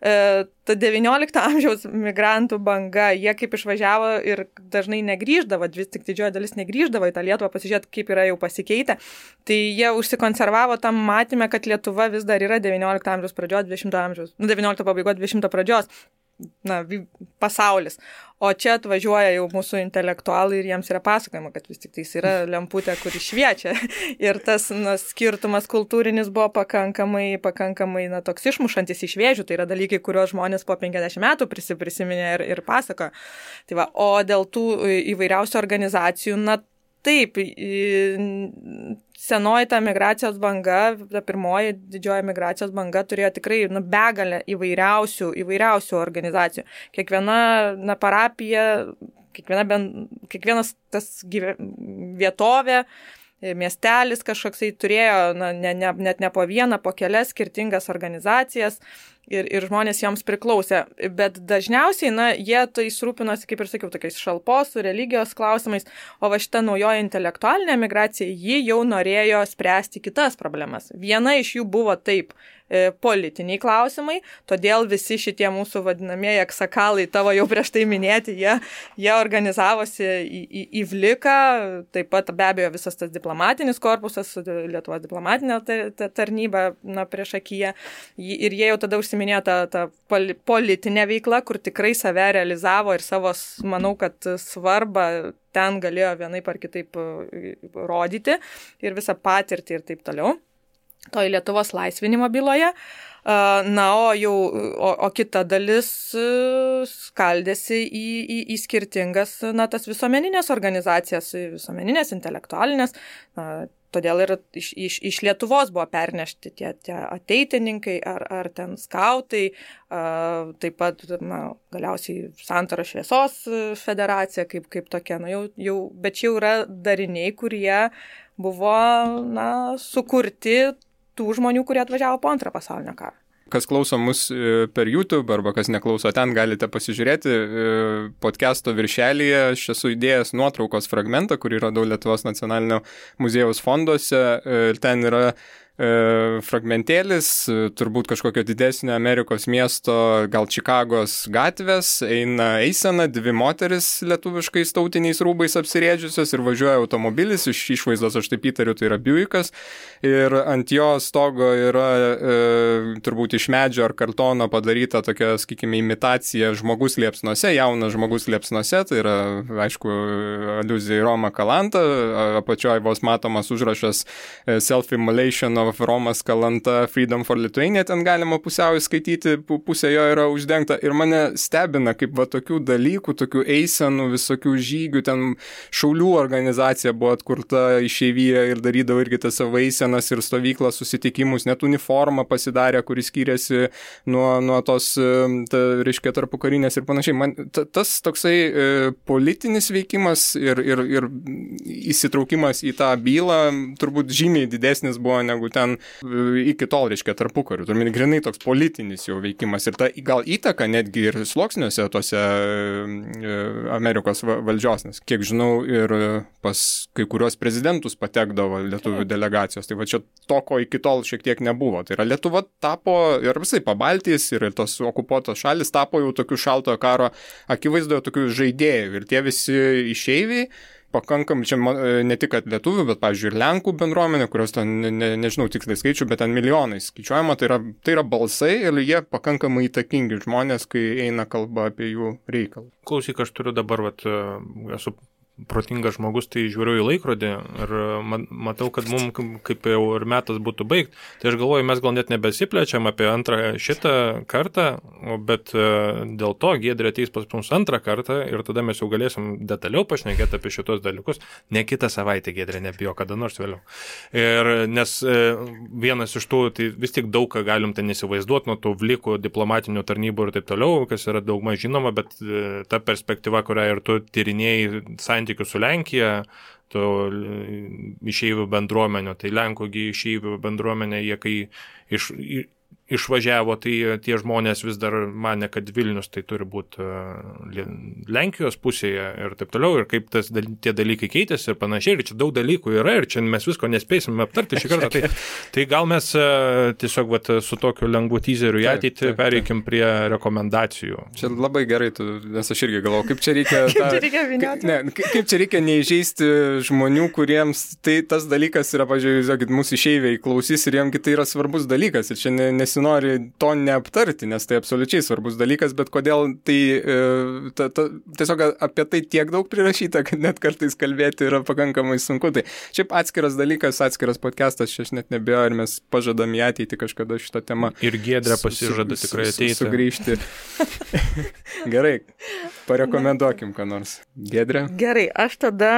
Speaker 2: ta 19 amžiaus migrantų banga, jie kaip išvažiavo ir dažnai negrįždavo, vis tik didžioji dalis negrįždavo į tą Lietuvą pasižiūrėti, kaip yra jau pasikeitę, tai jie užsikonservavo tam matymę, kad Lietuva vis dar yra 19 amžiaus pradžios, 20 amžiaus, 19 pabaigos, 20 pradžios, pasaulis. O čia atvažiuoja jau mūsų intelektualai ir jiems yra pasakojama, kad vis tik tai yra lemputė, kuri šviečia. Ir tas skirtumas kultūrinis buvo pakankamai toks išmušantis iš vėžių. Tai yra dalykai, kuriuos žmonės po 50 metų prisiminė ir pasakojo. Tai va, o dėl tų įvairiausių organizacijų, taip, senoji ta migracijos banga, ta pirmoji didžioji migracijos banga turėjo tikrai begalę įvairiausių organizacijų. Kiekviena parapija, kiekvienas tas vietovė, miestelis kažkoksai turėjo net ne po vieną, po kelias skirtingas organizacijas ir žmonės joms priklausė. Bet dažniausiai, jie tai rūpinosi, kaip ir sakiau, tokiais šalpos, religijos klausimais, o va šita naujoji intelektualinė migracija, ji jau norėjo spręsti kitas problemas. Viena iš jų buvo taip politiniai klausimai, todėl visi šitie mūsų vadinamieji aksakalai, tavo jau prieš tai minėti, jie organizavosi į Vliką, taip pat be abejo visas tas diplomatinis korpusas, Lietuvos diplomatinė tarnyba priešakyje, ir jie jau tada užsiminėjo tą politinę veiklą, kur tikrai save realizavo ir savo, manau, kad svarbą ten galėjo vienaip ar kitaip rodyti ir visą patirtį ir taip toliau. Toj Lietuvos laisvinimo byloje. O kita dalis skaldėsi į skirtingas, tas visuomeninės organizacijas, visuomeninės, intelektualinės. Todėl ir iš Lietuvos buvo pernešti tie ateitininkai ar ten skautai, taip pat galiausiai Santaro šviesos federacija kaip tokia. Bet čia jau yra dariniai, kurie buvo sukurti tų žmonių, kurie atvažiavo po Antrą pasaulinio karą.
Speaker 1: Kas klauso mus per YouTube arba kas neklauso ten, galite pasižiūrėti podcast'o viršelyje. Aš esu įdėjęs nuotraukos fragmentą, kurį radau Lietuvos nacionalinio muziejaus fonduose. Ir ten yra fragmentėlis, turbūt kažkokio didesnio Amerikos miesto, gal Čikagos gatvės, eisena, dvi moteris lietuviškais tautiniais rūbais apsirėdžiusios ir važiuoja automobilis, iš išvaizdos aš taip įtariu, tai yra Buickas, ir ant jo stogo yra turbūt iš medžio ar kartono padaryta tokia, sakykime, imitacija žmogus liepsnose, jaunas žmogus liepsnose, tai yra, aišku, aliuzija į Romą Kalantą, apačioje vos matomas užrašas Self-Immolation of Romas Kalanta Freedom for Lithuania, ten galima pusiau įskaityti, pusė jo yra uždengta ir mane stebina, kaip va tokių dalykų, tokių eisenų, visokių žygių, ten šaulių organizacija buvo atkurta išeivyje ir darydavo irgi tas savo eisenas ir stovyklas, susitikimus, net uniformą pasidarė, kuris skyrėsi nuo tos, reiškia, tarpukarinės ir panašiai. Man tas toksai politinis veikimas ir įsitraukimas į tą bylą turbūt žymiai didesnis buvo negu ten iki tol, reiškia, tarpukariu. Turime grinai toks politinis jau veikimas ir ta gal įtaka netgi ir sluoksniuose tose Amerikos valdžios, nes kiek žinau ir pas kai kurios prezidentus patekdavo lietuvių delegacijos. Tai va čia to, ko iki tol šiek tiek nebuvo. Tai yra Lietuva tapo ir visai Pabaltijos ir tos okupuotos šalis tapo jau tokių šaltojo karo akivaizdoje tokių žaidėjų ir tie visi išeiviai pakankamai, čia ne tik kad lietuvių, bet, pavyzdžiui, ir Lenkų bendruomenė, kurios ten, nežinau tiksliai skaičių, bet ten milijonais skaičiuojama, tai yra balsai ir jie pakankamai įtakingi žmonės, kai eina kalba apie jų reikalą.
Speaker 3: Klausyk, aš turiu dabar, esu protingas žmogus, tai žiūriu į laikrodį ir matau, kad mums kaip jau ir metas būtų baigti. Tai aš galvoju, mes gal net nebesiplečiam apie antrą šitą kartą, bet dėl to Giedrė ateis pas mums antrą kartą ir tada mes jau galėsim detaliau pašnekėti apie šitos dalykus. Ne kitą savaitę, Giedrė, nebijo, kada nors vėliau. Ir nes vienas iš tų, tai vis tik daug ką galim ten įsivaizduoti nuo tų vlikų diplomatinių tarnybų ir taip toliau, kas yra daugmaž žinoma, bet ta perspektyva, kurią ir tu tyrinėjai santykių su Lenkija, to išeivių bendruomenio, tai Lenkų išeivių bendruomenė, jie kai išvažiavo, tai tie žmonės vis dar mane, kad Vilnius tai turi būti Lenkijos pusėje ir taip toliau, ir kaip tie dalykai keitėsi ir panašiai, ir čia daug dalykų yra, ir čia mes visko nespėsim aptarti šį kartą. Tai gal mes tiesiog su tokiu lengvu teaseriu į ateitį pereikim prie rekomendacijų.
Speaker 1: Čia labai gerai, nes aš irgi galvoju, kaip čia reikia kaip čia reikia neįžeisti žmonių, kuriems tas dalykas yra, pažiūrėjau, mūsų išeiviai klausys ir jiems tai yra svarbus dalykas ir čia nesinori to neaptarti, nes tai absoliučiai svarbus dalykas, bet kodėl tai tiesiog apie tai tiek daug prirašyta, kad net kartais kalbėti yra pakankamai sunku. Tai šiaip atskiras dalykas, atskiras podcastas, aš net nebejoju, ir mes pažadam į ateitį kažkada šitą temą.
Speaker 3: Ir Giedrė pasižada tikrai ateiti.
Speaker 1: Sugrįžti. Gerai, parekomenduokim ką nors. Giedrė?
Speaker 2: Gerai, aš tada,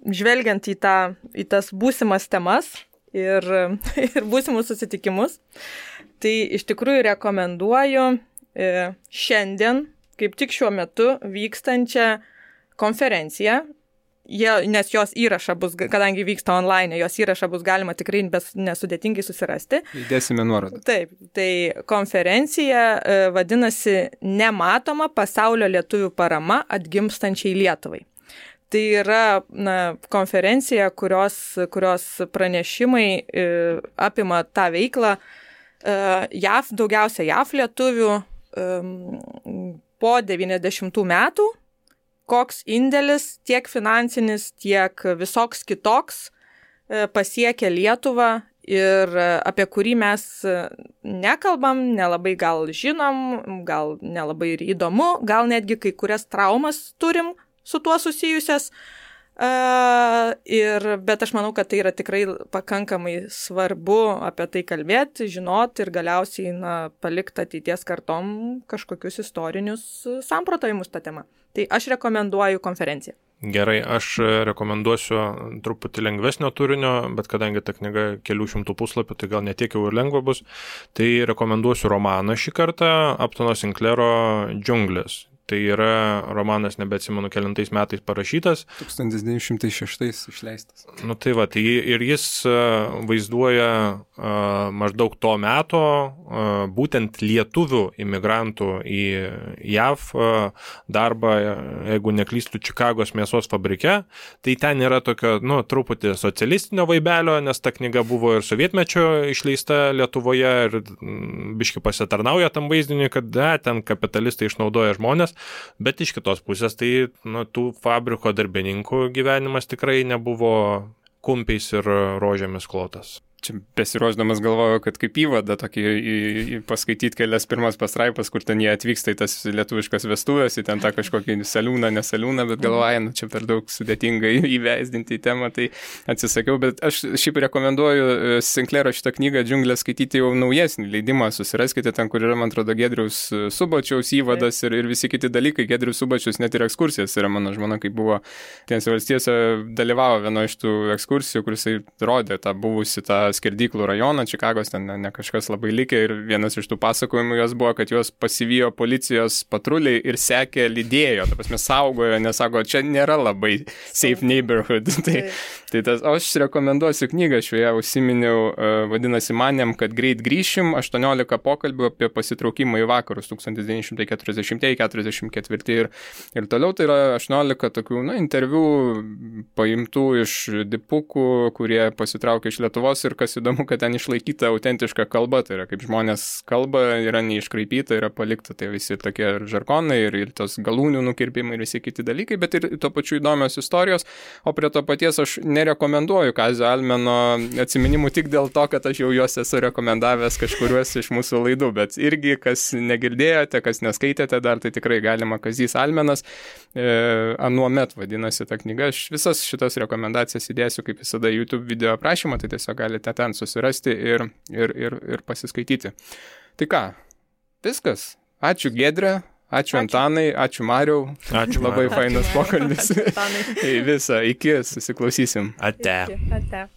Speaker 2: žvelgiant į tas būsimas temas ir būsimus susitikimus, tai iš tikrųjų rekomenduoju šiandien, kaip tik šiuo metu vykstančią konferenciją, nes jos įrašą bus, kadangi vyksta online, jos įrašą bus galima tikrai nesudėtingai susirasti.
Speaker 1: Įdėsime nuorodą.
Speaker 2: Taip, tai konferencija vadinasi Nematoma pasaulio lietuvių parama atgimstančiai Lietuvai. Tai yra konferencija, kurios pranešimai apima tą veiklą daugiausia JAV lietuvių po 90 metų, koks indėlis tiek finansinis, tiek visoks kitoks pasiekia Lietuvą ir apie kurį mes nekalbam, nelabai gal žinom, gal nelabai ir įdomu, gal netgi kai kurias traumas turim su tuo susijusias, bet aš manau, kad tai yra tikrai pakankamai svarbu apie tai kalbėti, žinoti ir galiausiai palikti ateities kartom kažkokius istorinius samprotavimus tą temą. Tai aš rekomenduoju konferenciją.
Speaker 3: Gerai, aš rekomenduosiu truputį lengvesnio turinio, bet kadangi ta knyga kelių šimtų puslapių, tai gal netiek jau ir lengva bus, tai rekomenduosiu romaną šį kartą, Uptono Sinclairo Džiunglės. Tai yra romanas, nebeatsimenu, kelintais metais parašytas.
Speaker 1: 1906 išleistas.
Speaker 3: Nu tai va, tai ir jis vaizduoja maždaug to meto būtent lietuvių imigrantų į JAV darbą, jeigu neklystu, Čikagos mėsos fabrike. Tai ten yra tokio, truputį socialistinio vaibelio, nes ta knyga buvo ir sovietmečio išleista Lietuvoje ir biški pasitarnauja tam vaizdiniui, kad ten kapitalistai išnaudoja žmonės, bet iš kitos pusės tai tų fabriko darbininkų gyvenimas tikrai nebuvo kumpiais ir rožėmis klotas.
Speaker 1: Čia besiruošdamas galvoju, kad kaip įvadą tokį paskaityti kelias pirmas pastraipas, kur ten jie atvyksta į tas lietuviškas vestuvės, į ten tą kažkokį saliūną, nesaliūną, bet galvoju, čia per daug sudėtingai įvesdinti į temą, tai atsisakiau, bet aš šiaip rekomenduoju Sinclairo šitą knygą Džiunglės skaityti jau naujesnį leidimą, susiraskite ten, kur yra, man atrodo, Giedriaus Subačiaus įvadas ir visi kiti dalykai. Giedrius Subačius net ir ekskursijas yra, mano žmona, kai buvo Tinėse valstijose, dalyvavo vienoje iš tų ekskursijų, kur jisai rodė tą buvusi tą skerdyklų rajoną, Čikagos ten ne kažkas labai likė ir vienas iš tų pasakojimų jos buvo, kad juos pasivijo policijos patruliai ir sekė, lydėjo, ta prasme saugojo, nes sako, čia nėra labai safe neighborhood. Tai tas, aš rekomenduosiu knygą, šioje užsiminiau, vadinasi Manėm, kad greit grįšim, 18 pokalbių apie pasitraukimą į vakarus 1940-44 ir toliau, tai yra 18 tokių, interviu paimtų iš dipukų, kurie pasitraukė iš Lietuvos ir kas įdomu, kad ten išlaikyta autentiška kalba, tai yra kaip žmonės kalba, yra neiškraipyta, yra palikta, tai visi tokie žargonai ir tos galūnių nukirpimai ir visi kiti dalykai, bet ir tuo pačiu įdomios istorijos, o prie to paties aš nerekomenduoju Kazio Almeno atsiminimų tik dėl to, kad aš jau juos esu rekomendavęs kažkuriuos iš mūsų laidų, bet irgi, kas negirdėjote, kas neskaitėte dar, tai tikrai galima. Kazys Almenas, Anuomet vadinasi ta knyga, aš visas šitas rekomendacijas įdėsiu kaip visada YouTube video aprašymą, tai tiesiog galite ten susirasti ir pasiskaityti. Tai ką, viskas. Ačiū Giedre, ačiū Antanai, ačiū Mariau.
Speaker 3: Ačiū
Speaker 1: labai
Speaker 3: Mariau.
Speaker 1: fainas pokalbis. Visą, iki, susiklausysim.
Speaker 3: Ate.
Speaker 2: Ate.